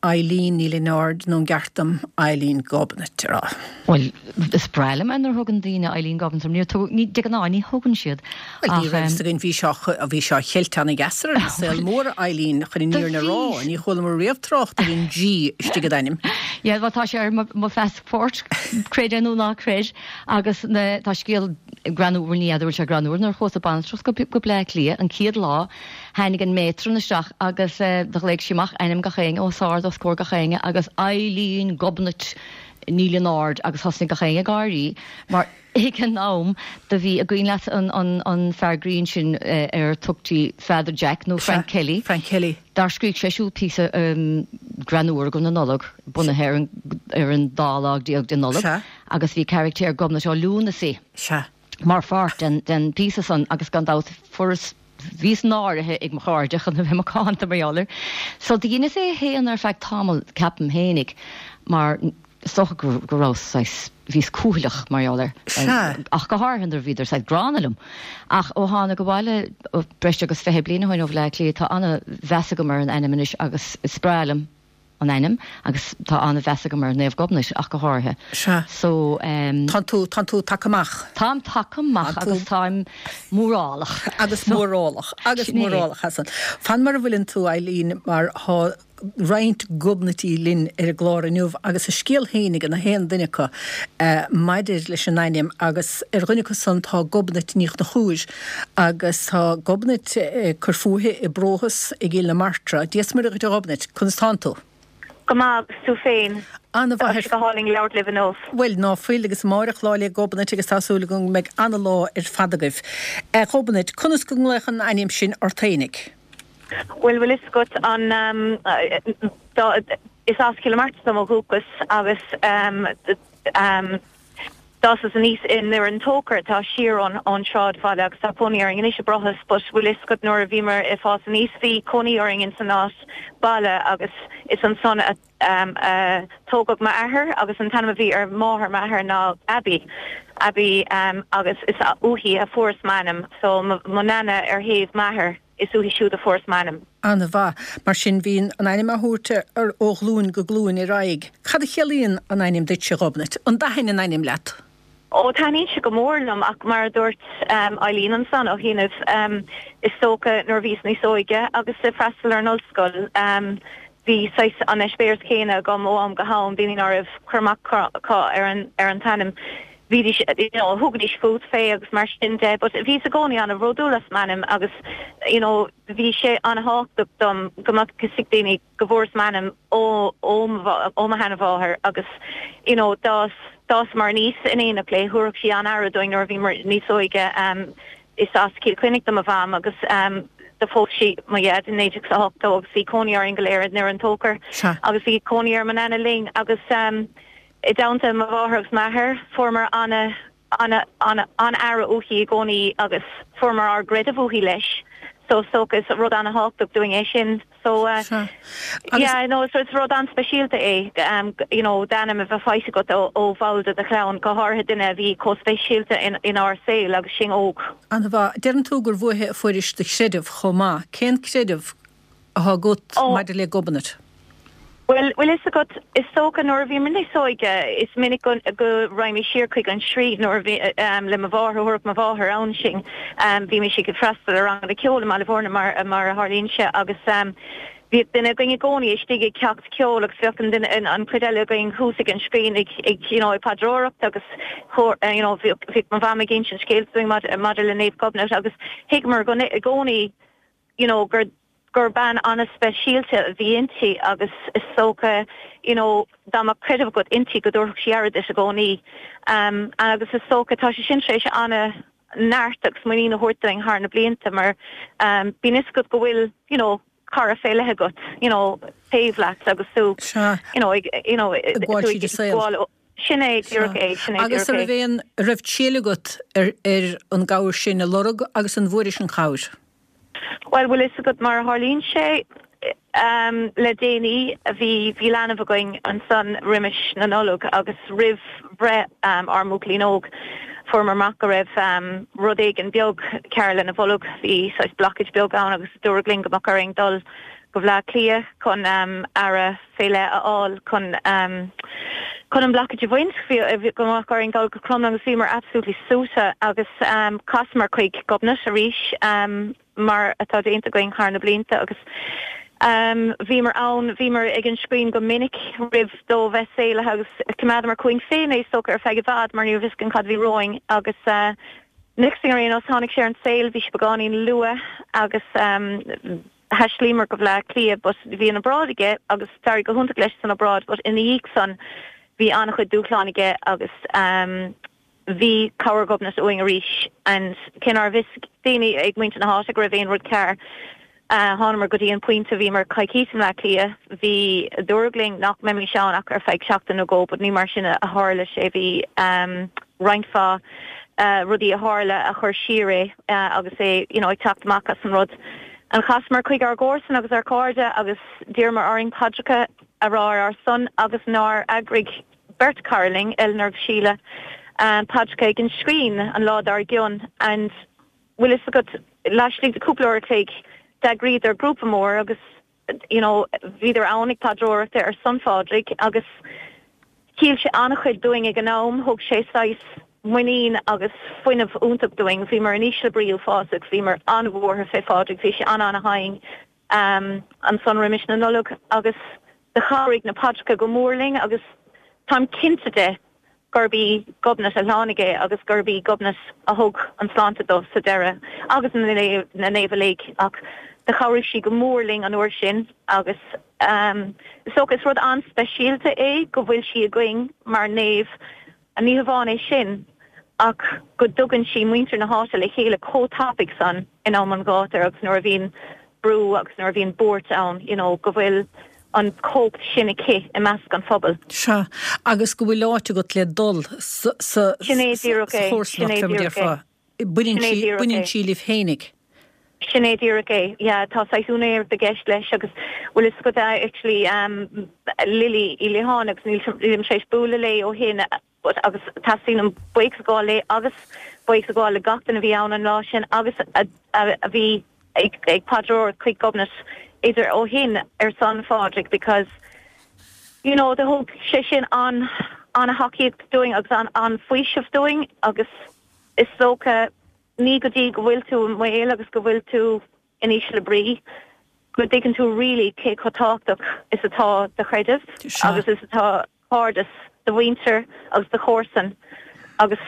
Eileen Ní Lionáird nó an gceart dom Eileen Gobnait a rá? Bhuel, is breá liom é nuair a thugann daoine Eileen Gobnait orm. Níor tugadh, ní, de ghnáth ní thugann siad Bhuel, ní raibh fhios againn, bhí sé, bhí sé á cheilt ana-dheas ar an saol mór, Eileen, chun an fhírinne a rá. Ní chualamar riamh trácht ar an G istigh i d'ainm. Yeah, bhuel, tá sé ar mo, mo phassport, creid é nó ná creid, agus na, tá scéal greannmhar, bhuel, ní fheadar bhfuil sé greannmhar, nuair a chuas ag baintreach go, go Bleá Cliath an chéad lá, tháinig an matron isteach agus eh, do ghlaoigh sí amach ainm gach éinne os ard os comhair gach éinne agus Eileen Gobnait Ní Lionáird agus thosnaigh gach éinne ag gáirí mar Ag an am do bhí, an cuimhin leat an fear grinn sin ar tugtaí Father Jack nó Frank Kelly? Frank Kelly. Dár scrígh sé siúd píosa greannmhar do na Nollag, bunaithe ar an ar an dá lá déag de Nollaig agus bhí caractéir Gobnait Ó Lúnasaí mar pháirt den den phíosa san agus gan dabht fuaireas bhíos náirithe ag mo chairde chun a bheith macánta mar gheall air. So do dheineas é a shéanadh ar feadh tamaill ceapaim fhéinig mar Is dócha go rabhas saghas, bhíos cúthaileach mar gheall air, ach go háirithe nuair a bhíodar saghas gránna liom. Ach ó thánag abhaile breis agus 20 bliain ó shin ó Bhleá Cliath, tá an-mheas agam ar an ainm anois agus is breá liom an ainm agus tá an-mheas agam ar Naomh Gobnait ach go háirithe. Sea. So. Tánn tú, tánn tú tagtha amach. Táim tagtha amach agus táim mórálach. Agus mórálach, agus mórálach as san. Fan mar a bhfuileann tú, Eileen, mar thá roinnt Gobnaití linn ar an gclár inniu agus a scéal féin ag na haon duine acu maidir leis an ainm agus ar dhuine acu san tá Gobnait Ní Chonchúir agus tá Gobnait ag cur fúithi i bPróthas i gCill na Martra. Dia 's Muire dhuit a Ghobnait, conas tánn tú? Go maith agus tú féin? Ana-mhaith. Tá sé go hálainn labhairt libh inniu. Bhuel, ná fuil, agus amáireach Lá 'le Gobnait agus tá súil agam go mbeidh ana-lá ar fad agaibh. A Ghobnait, conas go nglaofá an ainm sin ort fhéinig? Bhuel, bhfuil fhios agat an, is as Cill na Martra dom ó dhúchas agus d'fhásas aníos i nDoire an Tóchair atá siar ón sráidbhaile agus tá cónaí orainn anois i Brothas but bhfuil fhios agat nuair a bhíomar ag fás aníos bhí cónaí orainn ins an áit baile agus is ansan a a tógadh m'athair agus an t-ainm a bhí ar mháthair m'athar ná Abby, Abby agus is uaithi a fuaireas m'ainm so mo nana ar thaobh m'athar. Is uaithi siúd a fuaireas m'ainm. An-mhaith. Mar sin, bíonn an ainm á thabhairt ó ghlúin go glúin ar aghaidh. Cad a chiallaíonn an ainm duitse, a Ghobnait? An dtaithin an ainm leat? Ó, taitníonn sé go mór liom ach mar a dúirt Eileen ansan ó chianaibh, is dócha nuair a bhíos níos óige agus ag freastal ar an ollscoil, bhí saghas an eispéireas céanna agam ó am go ham, daoine ná raibh cur amach acu ar an t-ainm. Bhídís, you know, thugaidís fút fé agus mar sin de but bhíos i gcónaí an-bhródúil as m'ainm agus, you know, bhí sé an-thábhachtach dom go mbeadh fhios ag daoine go bhfuaireas m'ainm ó, ó mo, ó mo sheanmháthair agus, you know, d'fhás, d'fhásamar aníos in éineacht léi, thabharfadh sí an-aire dúinn nuair a bhíomar níos óige. Is as Cill Chainnigh do mo mham agus do phós sí mo dhaid i 1980 agus bhí cónaí orainn go léir i nDoire an Tóchair agus bhí cónaí ar mo nana linn agus, I dteannta mo mháthair agus m'athair, fuaireamar ana, ana, ana, an-aire uaithi i gcónaí agus fuaireamar ár gcreideamh uaithi leis. So is dócha is rud ana-thábhachtach dúinn é sin. So Sea. yeah, no, is rud an-speisialta é, you know, d'ainm a bheith faighte agat ó, ó bhall de do chlann, go háirithe duine a bhí chomh speisialta in, inár saol agus sinn óg. An-mhaith. Deireann tú gur uaithi a fuairis do chreideamh chomh maith. Cén creideamh atá agat maidir le Gobnait? Bhuel, bhfuil fhios agat, is dócha nuair a bhíomar níos óige, is minic go, go raghaimís siar chuig an sruth nuair a bhí, le mo mháthair, thabharfadh mo mháthair ann sinn. Bhímis ag freastal ar ranganna ceoil i mBaile Bhúirne mar, mar a tharlaíonn sé agus bhíodh duine againn i gcónaí istigh ag ceacht ceoil agus bheadh an duine, an chuid eile againn thuas ag an scrín ag, ag, you know, ag paidreoireacht agus you know, bhíodh, bhíodh mo mham ag insint scéalta dúinn maidir, maidir le Naomh Gobnait agus thuigeamar go, i gcónaí, you know, gur, gur bean an-speisialta a bhí inti agus is dócha you know dá mbeadh creideamh agat inti go dtabharfadh sí aire duit i gcónaí. Um agus is dócha tá sé sin tar éis an-neart agus muinín a thabhairt dúinn thar na blianta mar um bíonn fhios agat go bhfuil you know cara fé leith agat you know taobh leat agus tú you know ag you know ag gabháil tríd an saol. Sin é díreach é, sin é díreach é. Agus an raibh aon, raibh triail agat ar ar an gcabhair sin a lorg agus an bhfuairis an chabhair? Bhuel, bhfuil fhios agat mar a tharlaíonn sé, le déanaí, bhí, bhí leanbh againn ansan roimis na Nollag agus roimh bhreith ár mbuachaillín óg, fuaireamar amach go raibh rud éigin beag cearr lena bholg, bhí saghas blockage beag ann agus dúradh linn go mbeadh orainn dul go Bhleá Cliath chun aire fé leith a fháil chun chun an blockage a bhaint. Bhí go mbeadh orainn dul go Crumlin agus bhíomar absolutely suaite agus chasamar chuig Gobnait arís mar atá déanta againn thar na blianta agus bhíomar ann, bhíomar ag an scrín go minic roimh dó bheith saolaithe agus choimeádamar chugainn féin é is dócha ar feadh i bhfad mar ní raibh fhios againn cad a bhí romhainn agus next thing ar aon nós tháinig sé ar an saol, bhí sé beagáinín luath agus Thaistlíomar go Bhleá Cliath but bhí an obráid aige agus d'éirigh go hiontach leis san obráid but ina dhiaidh san bhí an-chuid dúshláin aige agus bhí cabhair Ghobnait uainn arís and cé ná raibh fhios ag daoine ag muintir na háite go raibh aon rud cearr thánamar go dtí an pointe bhíomar coicís i mBleá Cliath bhí dúradh linn nach mbeimis ann ach ar feadh seachtain nó dhó but ní mar sin a tharla sé bhí roinnt mhaith rudaí a tharla a chuir siar é agus é you know ag teacht amach as an rud. And chasamar chuig ár gcomharsain agus ár cairde agus d'iarramar orainn paidreacha a rá ar ár son agus nár eagraigh beirt cara linn, Eleanor agus Síle, paidreacha ag an scrín an lá dár gcionn and bhfuil fhios agat laistigh de cúpla uair a chloig d'eagraíodar grúpa mór agus you know bhíodar ann ag paidreoireacht ar son Phádraig agus chiall sé an-chuid dúinn ag an am, thug sé saghas muinín agus fuinneamh iontach dúinn. Bhíomar in ísle brí uafásach, bhíomar an-bhuartha fé Phádraig, bhí sé an-an-tinn ansan roimis na Nollag agus do chabhraigh na paidreacha go mór linn agus táim cinnte de gurb í Gobnait a shlánaigh é agus gurb í Gobnait a thug an tsláinte dó sa deireadh agus na naoimh uilig ach do chabhraigh sí go mór linn an uair sin agus. Is dócha is rud an-speisialta é go bhfuil sí againn mar naomh, ní hamháin é sin ach go dtugann sí muintir na háite le chéile chomh tapaidh san in am an ghátair agus nuair a bhíonn brú agus nuair a bhíonn buairt ann, you know, go bhfuil an chumhacht sin aici i measc an phobail. Sea, agus go bhfuil áit agat le dul sa sa Sin é díreach é, sin chomharsanacht, é fé mar díreach é. déarfá. Baineann Sin é sí, díreach baineann é. sí libh fhéinig. Sin é díreach é, yeah, tá saghas úinéireacht i gceist leis agus bhfuil fhios agat actually um, Lily Uí Liatháin agus níl nílim tar éis bualadh léi ó shin but agus teastaíonn uaim buíochas a ghabháil léi agus buíochas a ghabháil le gach duine a bhí ann an lá sin agus a, a, a bhí ag, ag paidreoireacht chuig Gobnait idir ó shin ar son Phádraig because you know do thug sé sin an an-thacaíocht dúinn agus an an-fhaoiseamh dúinn agus Is dócha, ní go dtí go bhfuil tú i mbaol agus go bhfuil tú in ísle brí go dtuigeann tú really cé chomh tábhachtach is atá do chreideamh agus is atá cairdeas do mhuintir agus do chomharsan agus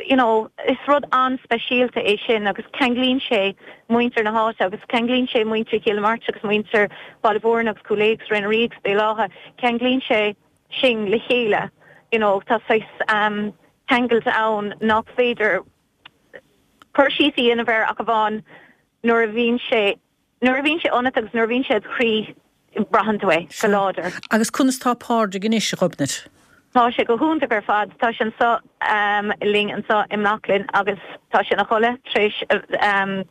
you know is rud an-speisialta é sin agus ceanglaíonn sé muintir na háite agus ceanglaíonn sé muintir Chill na Martra agus muintir Bhaile Mhúirne agus Cúil Aodha agus Rinn an Rí agus Béal Átha, ceanglaíonn sé sinn le chéile you know tá saghas ceangailt ann nach féidir cur síos a dhéanamh air ach amháin nuair a bhíonn sé nuair a bhíonn sé ionat agus nuair a bhíonn sé id chroí braitheann tú é go láidir. Agus conas tá Pádraig anois, a Ghobnait? Tá sé go hiontach ar fad. Tá sé anseo linn anseo i mBealach agus tá sé ina chodladh tar éis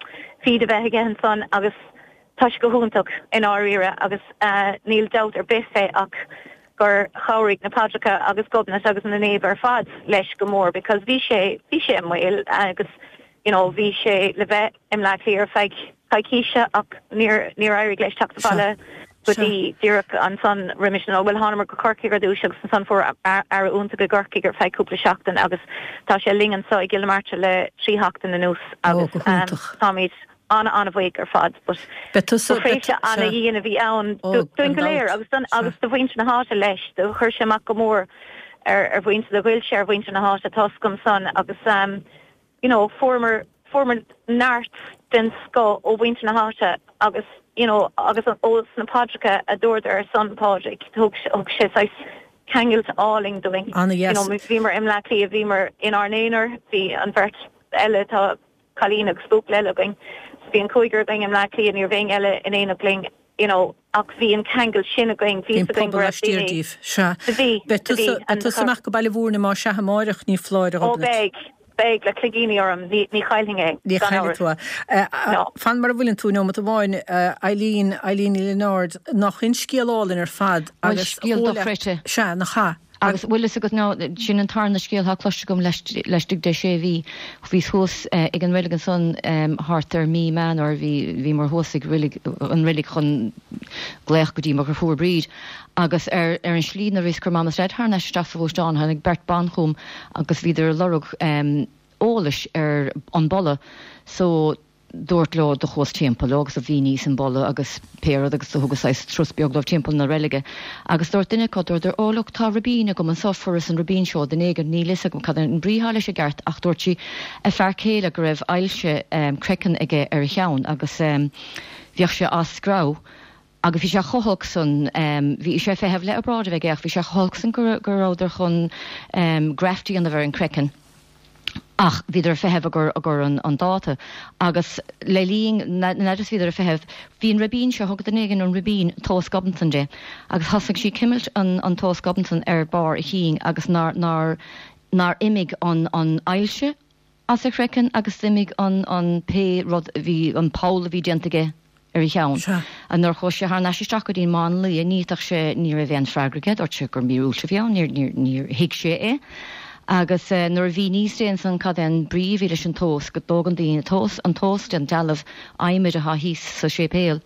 feed a bheith aige ansan agus Tá sé go hiontach i ndáiríre agus níl dabht ar bith fé ach gur chabhraigh na paidreacha agus Gobnait agus na naoimh ar fad leis go mór because bhí sé, bhí sé i mbaol agus you know bhí sé le bheith i mBleá Cliath ar feadh coicíse ach níor, níor éirigh leis teacht abhaile go dtí díreach ansan roimis an, bhuel thánamar go Corcaigh ar dtús agus ansan fuair aire iontach i gCorcaigh ar feadh cúpla seachtain agus tá sé linn anso i gCill na Martra le 3 sheachtain anuas agus táimid an-an-bhuíoch ar fad but Beidh tusa, ba thréimhse ana-dhian a bhí ann Ó, dúinn gan go léir dabht, agus don sea. agus do mhuintir na háite leis. Do chuir sé amach go mór ar ar mhuintir, do ghoill sé ar mhuintir na háite, tá's agam san agus ehm you know fuaireamar fuaireamar neart den scoth ó mhuintir na háite agus you know agus ó sna paidreacha a dúradar ar son Phádraig thug thug sé saghas ceangailt álainn dúinn. Ana-dheas. You know bhíomar i mBleá Cliath, bhíomar inár n-aonar, bhí an bheirt eile tá cailín agus buachaill eile againn. So bhí an cúigear againn i mBleá Cliath, ní raibh éinne eile in éineacht linn, you know, ach bhí an ceangal sin againn, Bhí bhí an fhios againn pobal go raibh laistiar daoine. díbh. Sea. Do bhí, Beidh do bhí, tusa, beidh and tusa amach go Baile Mhúirne más ea amáireach, ní foláir, a Ó Ghobnait. beidh, beidh, le cloigíní orm, ní, ní chaillfinn é, Ní gan chaillfidh amhras. tú é. No. Fan mar a bhfuileann tú, neomat amháin, a Eileen, Eileen Ní Lionáird, nach in scéal álainn ar fad Bhuel, agus scéal chomh le, dochreidte. sea, nach ea? Agus bhfuil fhios agat now, sin an tarna scéal atá cloiste agam laistigh de sé mhí. Bhíos thuas ag an reilig ansan thart ar mí Meán Fhómhair, bhí, bhíomar thuas ag reilig, an reilig chun glaoch go dtí mo dheirfiúr Bríd. Agus ar, ar an slí nuair a bhíos ag cur Mam is Daid thar n-ais isteach sa ghluaisteán, tháinig beirt ban chugam agus bhíodar ag lorg eolais ar an bPolla. So, dúrt leo do chuas timpeall leo agus do mhíníos an Polla agus pé rud agus do thugas saghas turas beag dóibh timpeall na reilige agus dúirt duine acu, dúradar, oh look tá ribín agam anso, fuaireas an ribín seo ó duine éigin, níl fhios agam cad é an brí atá leis i gceart ach dúirt sí a fear céile go raibh ailse craiceann aige ar a cheann agus bhíodh sé á screamh agus bhí sé chomh holc san, bhí sé ag feitheamh le obráid a bheith aige ach bhí sé chomh holc san go go rabhadar chun graft a dhéanamh ar an craiceann ach bhíodar ag feitheamh i gcomhair i gcomhair an an dáta agus le linn na n'fheadar is bhíodar ag feitheamh bhí an ribín seo thug duine éigin an ribín tomhas Gobnatan di agus thosaigh sí cimilt an an tomhas Gobnatan ar barr a chinn agus nár nár nár imigh an an ailse as a chraiceann agus d'imigh an, an, pé rud a bhí, an poll a bhí déanta aige ar a cheann. Sea. Nuair a chuaigh sé thar n-ais isteach go dtí an máinlia, ní fhéadfadh sé, ní raibh aon freagra aige, dúirt sé gur míorúilt a bhí ann, níor, níor, níor thuig sé é. Agus nuair a mhíníos di ansan cad é an brí a bhí leis an tomhas, go dtógann daoine tomhas, an tomhas den dealbh adhmaid atá thíos sa séipéal,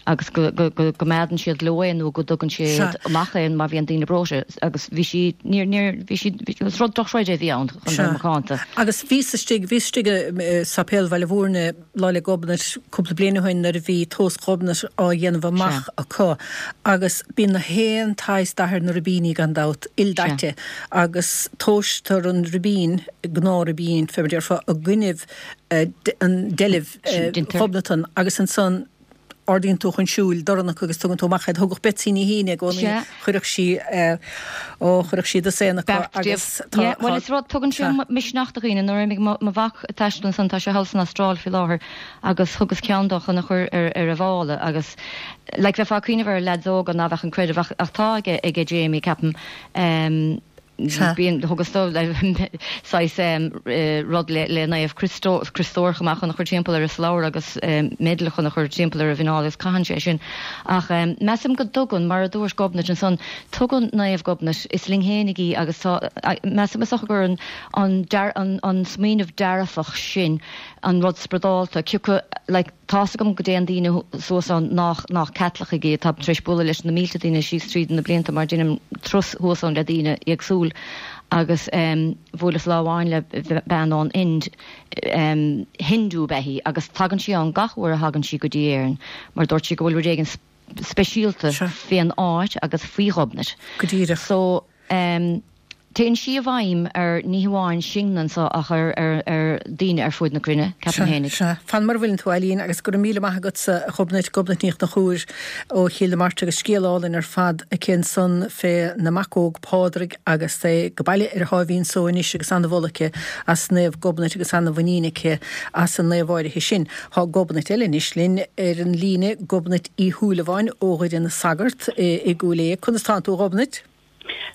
agus go gcoimeádann siad leo é nó go dtugann siad amach é má bhíonn daoine breoite agus bhí sí, níor, níor, bhí sí, is rud dochreidte a bhí ann chun bheith macánta. Agus bhíos istigh, bhíos istigh i Sáipéal Bhaile Mhúirne Lá 'le Gobnait cúpla bliain ó shin nuair a bhí tomhas Ghobnait á dhéanamh amach acu agus bíonn na haon tsaghas dath ar na ribíní gan dabht, ildaite agus tomhaistear an ribín, gnáth-ribín fé mar a déarfá, i gcoinnibh an deilbh Ghobnatan agus ansan. ardaíonn tú chun siúil dorn acu agus tugann tú amach iad. Thugadh Betsy Ní hAoine i gcónaí, chuireadh sí, ó, chuireadh sí dosaen acu agus tá, tá. Bhuel is rud, tugann sé misneach do dhaoine. Nuair a imigh mo mhac ag taisteal ansan, tá sé thall san Astráil faoi láthair, agus thugas ceann dó chun a chur ar ar a mhála agus like bheifeá ag cuimhneamh ar leaids óga ná bheadh an creideamh ach ach tá aige aige Jamie ceapaim. Bíonn, thugas dó saghas rud le Naomh Criostóir chomh maith chun a chur timpeall ar a slabhra agus medal chun a chur timpeall ar a mhuineál agus caitheann sé sin. Ach measaim go dtugann, mar a dúirt Gobnait ansan, tugann Naomh Gobnait, is linn fhéinig í agus tá, measaim is dócha gur an an smaoineamh dearfach sin an rud spioradálta, cioca, like, Tá's agam go dtéann daoine suas ann nách, nách Caitlicigh iad. Táim tar éis bualadh leis na mílte daoine síos tríd na blianta mar deinim turas thuas ann le daoine éagsúil agus em bhuaileas lá amháin le bean ón Ind, em Hindu ab ea í agus tagann sí ann gach uair a thagann sí go dtí Éirinn mar dúirt sí go bhfuil rud éigin speisialta fén áit agus faoi Ghobnait. Go díreach. So, em, téann sí i bhfeidhm ar ní hamháin sinne anso ach ar, ar, ar daoine ar fuaid na cruinne, ceapaim Sea, fhéinig. sea. Fan mar a bhfuileann tú, Eileen, agus go raibh míle maith agatsa, a Ghobnait, Gobnait Ní Chonchúir ó Chill na Martra agus scéal álainn ar fad aici ansan fé na mac óg Pádraig agus é ag baile ar a sháimhín só anois agus ana-mholadh aici as Naomh Gobnait agus ana-mhuinín aici as an naomh áirithe sin. Tá Gobnait eile anois linn ar an líne, Gobnait Uí Shúilleabháin ó Dhoire na Sagart i gCúil Aodha. Conas tánn tú, a Ghobnait?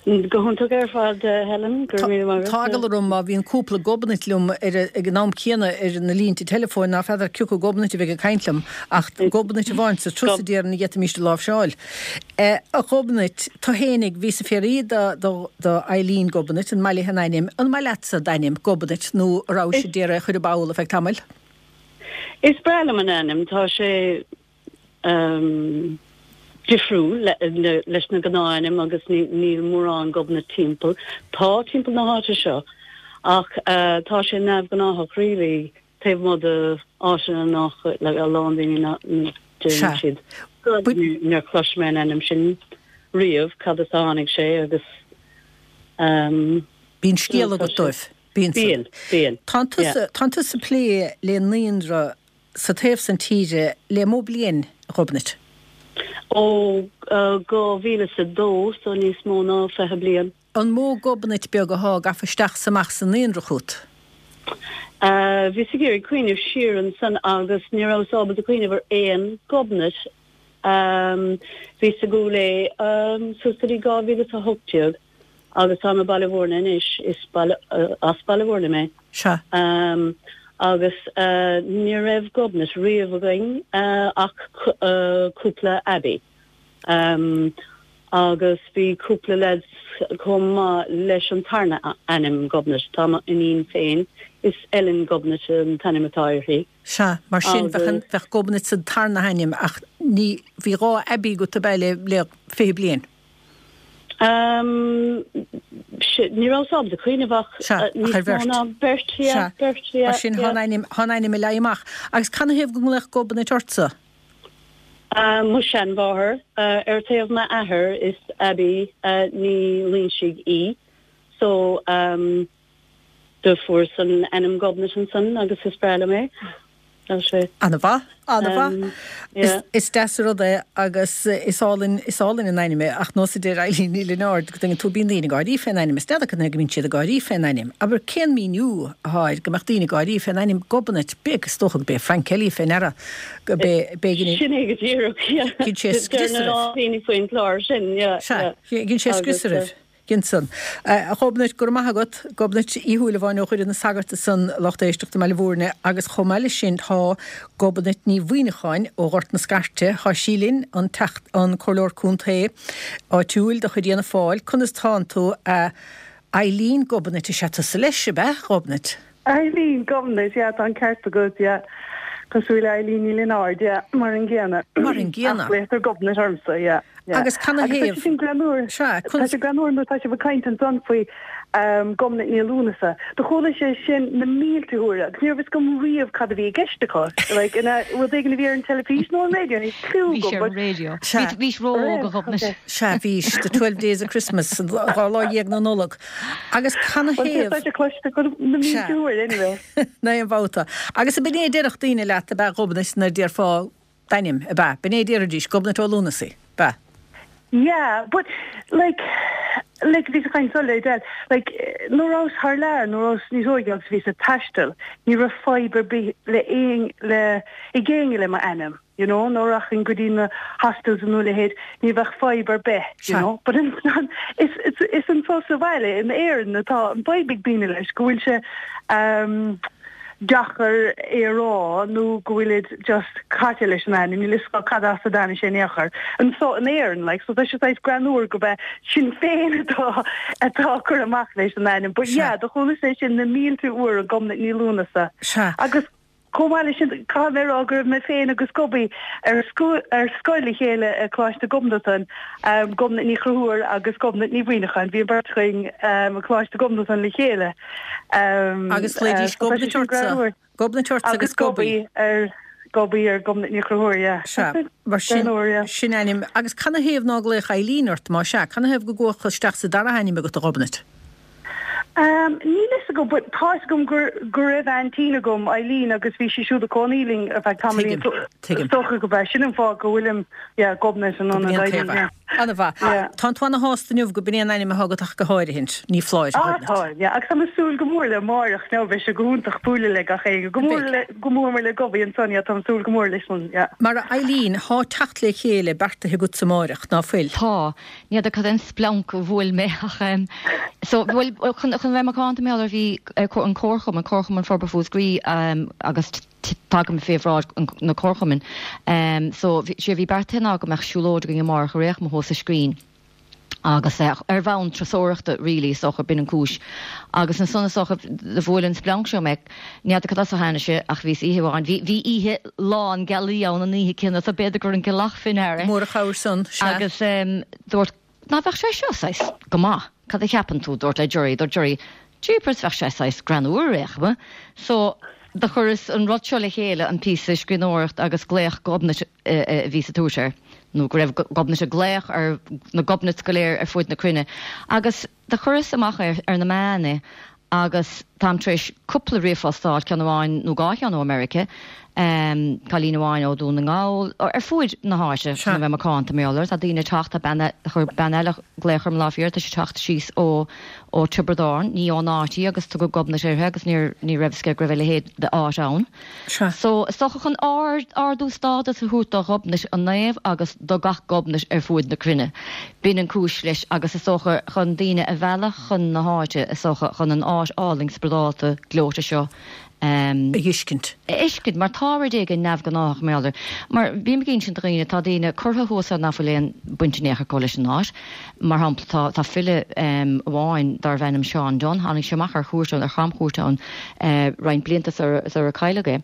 Go hiontach ar fad, Helen. Go raibh míle maith agat. Tá eagla orm má bhíonn cúpla Gobnait liom ar ag an am céanna ar na línte teileafóin ná feadar cioca Gobnait a bheidh ag caint liom, ach Gobnait amháin sa turas a déarfainn a d'fhéadfaimíst a láimhseáil. A Ghobnait, tu fhéinig, bhíos ag fiafraí do Eileen Gobnait, an maith léi an ainm, an maith leatsa d'ainm, Gobnait, nó a rabhais ag iarraidh é a chur i bpoll ar feadh tamaill? Is breá liom an ainm, tá sé difriúil leis na gnáth-ainm agus níl mórán Gobnait timpeall. Tá timpeall na háite seo ach tá sé neamhghnáthach really taobh amuigh de áiteanna nach like a lán daoine nach deireann siad níor chlois mé an ainm sin riamh, cad as a tháinig sé agus. Bíonn scéal agat dóibh. Bíonn. Bíonn, bíonn. Tánn tusa, tánn tusa ag plé le naíonra sa taobh san tíre le mó bliain, a Ghobnait? Ó 2002, so níos mó ná 20 bliain. An mó Gobnait beag athá gafa isteach 's amach sa naíonra chút? Bhíos ag iarraidh cuimhneamh siar ansan agus ní rabhas ábalta cuimhneamh ar aon Ghobnait. Bhíos i gCúil Aodha suas go dtí 2018. Agus táim i Baile Mhúirne anois, is as Baile Mhúirne mé. Sea. Agus ní raibh Gobnait riamh againn ach cúpla Abbey. Agus bhí cúpla leaids chomh maith leis an tarna ainm Gobnait. Tá m'iníon féin, is Ellen Gobnait an t-ainm atá uirthi. Sea, mar sin bheadh Gobnait sa tarna hainm ach ní, bhí 2 Abbey agat ab ea le 20 bliain? Ní rabhas ábalta cuimhneamh ach níos mó ná beirt, yeah, beirt, yeah. Mar sin, thá an ainm, thá an ainm ag leí amach. Agus canathaobh go nglaodh Gobnait ortsa? Mo sheanmháthair, ar taobh m'athair, is Abbie Ní Loingsigh í, so Do fuaireas an ainm Gobnait ansan agus is breá liom é. Tá sé. Ana-mhaith, ana-mhaith. Yeah. Is deas an rud é agus is álainn, is álainn an ainm é ach nós a deir Eileen Ní Lionáird go dtuigeann tú bíonn daoine ag gáirí fén ainm is n'fheadar cad chuige go mbíonn siad ag gáirí fén ainm. Abair cén míniú athá air go mbeadh daoine ag gáirí fén ainm Gobnait, b'é is dócha go b'é Frank Kelly fé ndeara go b'é b'éigean Sin é go díreach, yeah. Ghin sé scrios oraibh. Deir na daoine faoin chlár sin, yeah, yeah. Sea, ghin sé scrios oraibh. Ghin san. A Ghobnait, go raibh maith agat. Gobnait Uí Shúilleabháin ó Dhoire na Sagart ansan, lucht éisteachta i mBaile Mhúirne, agus chomh maith leis sin tá Gobnait Ní Mhuineacháin ó Ghort na Scairte, tá sí linn, an Teachta, an Comhairleoir Contae áitiúil de chuid Fhianna Fáil. Conas tánn tú, a Eileen Gobnait, is ea tusa leis, ab ea, Ghobnait? Eileen Gobnait, yeah, tá an ceart agat, yeah. Cosúil le Eileen Ní Lionáird, yeah, mar an gcéanna. Mar an gcéanna. Ach glaotar Gobnait ormsa, yeah, yeah. Agus canathaobh? Agus tá sé sin greannmhar. Sea, Tá sé greannmhar nuair atá sibh ag caint ansan faoi Gobnait Ní Lúnasa. Do chuala sé sin na mílte huaire agus ní raibh fhios agam riamh cad a bhí i gceist acu. Like, an ea rud éigin a bhí ar an teilifís nó an raidió, níl cliú Bhí agam, sé ar but. an raidió. Sea. Bhís ró-óg a Ghobnait. Sea, bhís. The Twelve Days of Christmas, an 12 lá na Nollag. Agus canathaobh? Tá sé cloiste agam na mílte uair anyway. Ná aon bhabhta. Agus ab in é a déarfadh daoine leat ab ea a Ghobnait nuair a déarfá. D'ainm, ab ea? B'in é a déarfaidís, Gobnait Ó Lúnasaí, ab ea? Yeah, but like, like bhíos ag caint ansan le Edel, like nuair a rabhas thar lear, nuair a rabhas níos óige agus bhíos ag taisteal, ní raibh fadhb ar bith le aon, le, ag éinne le m'ainm, you know, nuair a rachainn go dtí na hostels nó a leithéid, ní bheadh fadhb ar bith, you know, but ansan, is, is, is anso sa bhaile in Éirinn atá an fadhb ag daoine leis, go bhfuil sé, um, deacair é a rá nó go bhfuilid just caite leis an ainm, níl fhios acu cad as a dtaitnigh sé in aon chor. Anso in Éirinn, like, so tá sé saghas greannmhar gurb é sinn féin atá atá ag cur amach leis an ainm. But yeah, do chualas é sin na mílte uair, Gobnait Ní Lúnasa. Sea. Agus chomh maith leis sin, caithfidh mé a rá go raibh mé féin agus Gobby ar ar scoil le chéile i Coláiste Ghobnatan, Gobnait Ní Chonchúir agus Gobnait Ní Mhuineacháin, bhí an bheirt againn i Coláiste Ghobnatan le chéile. Agus ghlaoidís Gobnait ortsa, Gobnait ortsa agus Gobby. Ar Gobby ar Gobnait Ní Chonchúir, yeah. Sea, mar sin, sin ainm. Agus canathaobh ná glaodh Eileen ort, má sea, canathaobh go gcuathas isteach sa dara hainm agat, a Ghobnait? Níl fhios agam, but tá fhios agam gur, go raibh aintín agam, Eileen, agus bhí sí siúd ag cónaí linn ar feadh tamaillín, so is dócha gurb é sin an fáth go bhfuilim, yeah, Gobnait in ionad Eileen, yeah. An-mhaith. Tánn tú ana-shásta inniu go b'in é an ainm atá agat ach go háirithint. Ní foláir, a Ghobnait. Ah, tá, yeah. Agus tá mé ag súil go mór le amáireach now, beidh sé go hiontach bualadh le gach éinne. Go mór le, go mór mór le Gobby ansan, yeah, tá mé ag súil go mór leis san, yeah. Mar a Eileen, thá teacht le chéile beartaithe agatsa amáireach, ná fuil? Tá. Ní fheadar cad é an splanc a bhuail mé ach em so, bhuel, chun, chun bheith macánta, mar gheall ar bhí an Comharchumann, Comharchumann Forbartha Mhúscraí em agus Tagaim fé bhráid na Comharchumainn. So, sé a bhí beartaithe ná go mbeadh siúlóid againn amárach ar aon chuma thuas sa Scrín agus ar bhonn turasóireachta really is dócha, b'in an cúis. Agus ansan is dócha do bhuail an splanc seo mé, ní fheadar cad as a tháinig sé ach bhíos oíche amháin, bhí, bhí oíche lán gealaí ann an oíche céanna so b'fhéidir gur an gealach fé ndear é. Mór an chabhair san, sea. Agus dúirt, ná bheadh sé seo saghas go maith, cad a cheapann tú, dúrt le Gerry, dúirt Gerry, Jeepers, bheadh sé saghas greannmhar ar aon chuma. So, do chuireas an rud seo le chéile, an píosa scríbhneoireacht agus glaoch Ghobnait a bhí sa tús air, nó go raibh Gobnait ag glaoch ar na Gobnaits go léir ar fuaid na cruinne. Agus do chuireas amach é ar na meáin é agus táim tar éis cúpla ríomhphost a fháil, ceann amháin nó dhá cheann ó America, cailín amháin ó Dhún na nGall, ar fuaid na háite, chun a bheith macánta, mar gheall air. Tá daoine ag teacht, tá bean, chuir bean eile glaoch orm lá faoi dheireadh, tá sí ag teacht síos ó ó Tiobraid Árann, ní ón áit í agus tugadh Gobnait uirthi agus níor, ní raibh fhios aici go raibh a leithéid d'áit ann. So, is dócha chun ard, ardú stádas a thabhairt do Ghobnait an naomh agus do gach Gobnait ar fuaid na cruinne. B'in an cúis leis agus is dócha chun daoine a mhealladh chun na háite, is dócha chun an áit álainn spioradálta gleoite seo a fheiscint. a fheiscint, mar tá rud éigin neamhghnáthach mar gheall air. Mar bím ag insint do dhaoine, tá daoine curtha thuas ann ná fuil aon baint in aon chor acu leis an áit. Mar shampla, tá, tá file amháin darbh ainm Seán Dunne, tháinig sé amach ar chuairt ann, ar chamchuairt ann roinnt blianta sar ar cailleadh é.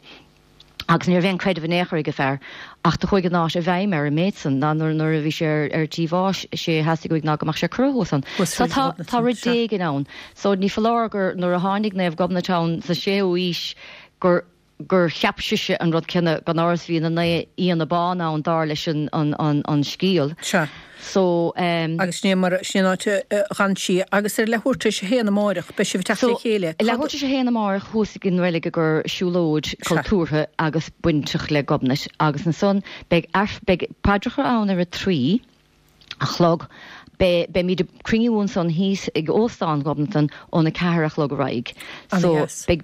Agus ní raibh aon creideamh in aon chor ag an fear, ach do chuaigh an áit i bhfeidhm air an méid san, ná nuair, nuair a bhí sé ar, ar tí bháis, sé a theastaigh uaidh ná go mbeadh sé curtha thuas ann. So tá, tá rud éigin ann. So ní foláir gur nuair a tháinig Naomh Gobnait ann sa séú aois gur, gur cheap sise an rud céanna, gan amhras bhí na naoi fhianna bán ann dar leis an, an, an, an scéal. Sea. So, ehm. Agus sin é mar, sin é an áit a d'fhan sí. Agus ar leathuair tar éis a haon amáireach, beidh sibh ag teacht So, le chéile. leathuair tar éis a haon amáireach thuas ag an reilig i gcomhair siúlóid Sea. cultúrtha agus bainteach le Gobnait. Agus ansan beidh aif, beidh paidreacha ann ar a 3 a chlog. Beidh, beimid ag cruinniú ansan thíos ag Óstán Ghobnatan óna 4 a chlog ar aghaidh. Ana So, dheas. beidh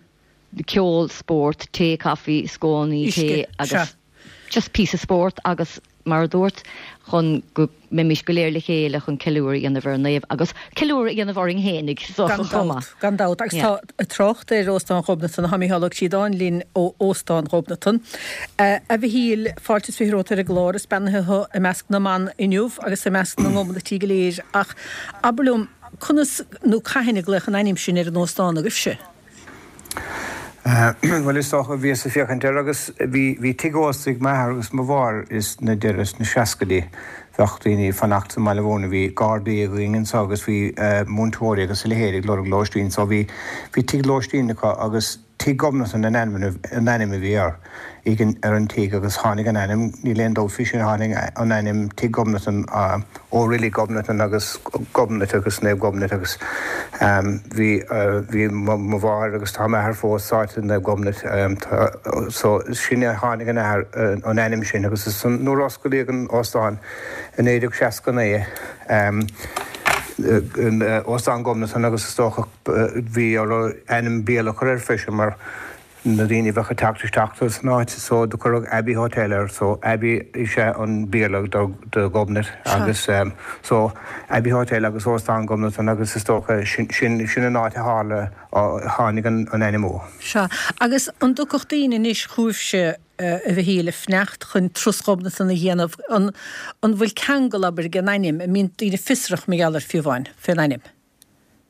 ceol, spórt, tae, caife, scónaí, Uisce, tae agus sea. just píosa spórt agus mar a dúrt, chun go mbeimis go léir le chéile chun ceiliúradh a dhéanamh ar an naomh agus ceiliúradh a dhéanamh orainn fhéinig so Gan chomh dabht, maith. gan dabht. Agus Yeah. tá trácht ar Óstán Ghobnatan, tá Mícheál Ó Críodáin linn ó Óstán Ghobnatan. A Mhichíl, fáilte is 20 romhat ar an gclár, is beannaithe thú i measc na mban inniu agus i measc na nGobnaití go léir ach abair liom, conas nó cathain a glaodh an ainm sin ar an óstán agaibhse? Bhuel, is dócha, bhíos ag féachaint air agus bhí, bhí tigh ósta ag m'athair agus mo mháthair is na deireadh sna seascaidí. Bheadh daoine ag fanacht sa mBaile Mhúirne, bhí gardaí againn anso agus bhí múinteoirí agus a leithéid ag lorg lóistín so bhí, bhí tigh lóistín acu agus. Tigh Ghobnatan an ainm an ainm a bhí air ag an ar an tigh agus tháinig an ainm, níl aon dabht faoi sin, tháinig an ainm Tigh Ghobnatan ó Reilig Ghobnatan agus Gobnait agus Naomh Gobnait agus bhí bhí mo mháthair agus tá m'athair fós sáite i Naomh Gobnait so sin a tháinig an athair an ainm sin agus is nuair a osclaíodh an óstán i 1969 Óstán Ghobnatan agus is dócha bhí orthu ainm Béarla a chur air freisin mar na daoine a bheadh ag teacht isteach san áit so do cuireadh Abbey Hotel air so Abbey is ea an Béarla do Ghobnait agus so Abbey Hotel agus Óstán Ghobnatan agus is dócha sin sin an áit a tharla tháinig an ainm ó. Sea, agus an dtiocfadh daoine anois chugaibhse a Mhichíl ag fanacht chun turas Ghobnatan a dhéanamh an an bhfuil ceangal abair ag an ainm, an mbíonn daoine fiosrach mar gheall air fiú amháin fén ainm?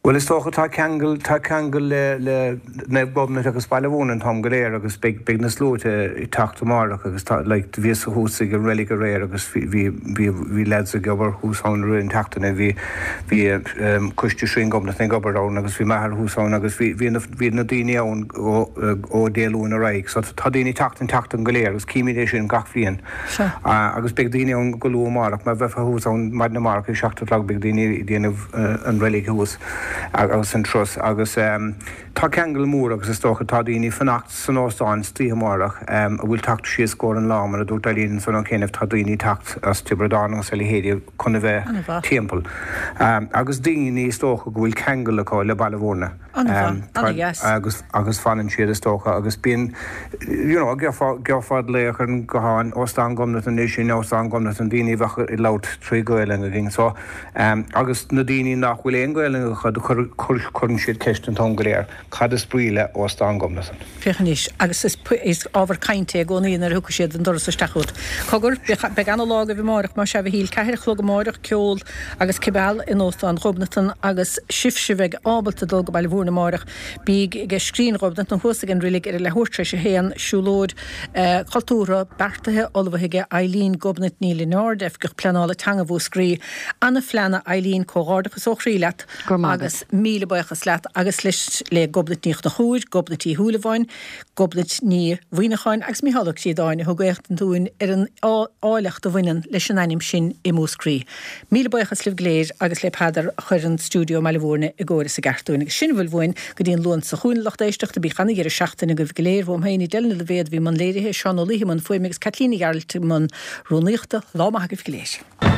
Bhuel is dócha tá ceangal, tá ceangal le, le Naomh Gobnait agus Baile Mhúirne an t-am go léir agus beidh, beidh na sluaite ag teacht amárach agus tá, like, bhíos thuas ag an reilig aréir agus bhí, bhí, bhí, bhí lads ag obair thuas ann i rith an tseachtaine, bhí, bhí ehm coiste Shrine Ghobnatan ag obair ann agus bhí m'athair thuas ann agus bhí, bhí na, bhí na daoine ann ó, ó Dé Luain ar aghaidh so tá daoine ag teacht an tseachtain go léir agus címid é sin gach bhliain. Sea. Agus beidh daoine ann go luath amárach, má bheifeá thuas ann maidin amárach ag 7 a chlog beidh daoine ag déanamh an reilig thuas agus an turas agus tá ceangal mór agus is dócha tá daoine ag fanacht san óstán istoíche amárach a bhfuil teacht síos i gcomhair an lá mar a dúirt Eileen ansan ó chianaibh tá daoine ag teacht as Tiobraid Árann agus a leithéidí chun a bheith timpeall agus daoine is dócha go bhfuil ceangal acu le Baile Mhúirne. An-mhaith, an-dheas. Agus, agus fanann siad is dócha agus bíonn, you know, gheofá, gheofá glaoch ar an guthán, Óstán Ghobnatan é sin, Óstán Ghobnatan, daoine a bheadh ag labhairt trí Ghaelainn againn so, agus na daoine nach bhfuil aon Ghaelainn acu, cuir, cuir, cuireann siad ceist an t-am go léir, cad is brí le Óstán Ghobnatan? Féach anois, agus is, is ábhar cainte é i gcónaí nuair a thiocfaidh siad an doras isteach chugat. Cogar, beidh, beidh ana-lá agaibh amáireach, más ea a Mhichíl, ceathair a chlog amáireach, ceol agus cibeal in Óstán Ghobnatan agus sibhse a bheidh ábalta dul go Baile Mhúirne amáireach, bíg ag Scrín Ghobnatan thuas ag an reilig ar a leathuair tar éis a haon, siúlóid chultúrtha beartaithe, ullmhaithe ag Eileen Gobnait Ní Lionáird, Oifigeach Pleanála Teanga Mhúscraí. Ana-phlean a Eileen, comhghairdeachas ó chroí leat agus míle buíochas leat agus leis le Gobnait Ní Chonchúir, Gobnait Uí Shúilleabháin, Gobnait Ní Mhuimhneacháin agus Mícheál Ó Críodáin a thug éachtaint dúinn ar an áilleacht a bhaineann leis an ainm sin i Múscraí. Míle buíochas libh go léir agus le Peadar a chuir an stiúideo i mBaile Mhúirne i gcóir is i gceart dúinn. Agus sin a bhfuil uainn go dtí an Luan seo chugainn, a lucht éisteachta. Bíodh ana-dheireadh seachtaine agaibh go léir. Uaim féin, Edel Ní Loibhéad a bhí i mbun léirithe, Seán Ó Laoithe i mbun fuaime agus Caitlín Ní Ghearailt i mbun rúnaíochta. Lá maith agaibh go léir.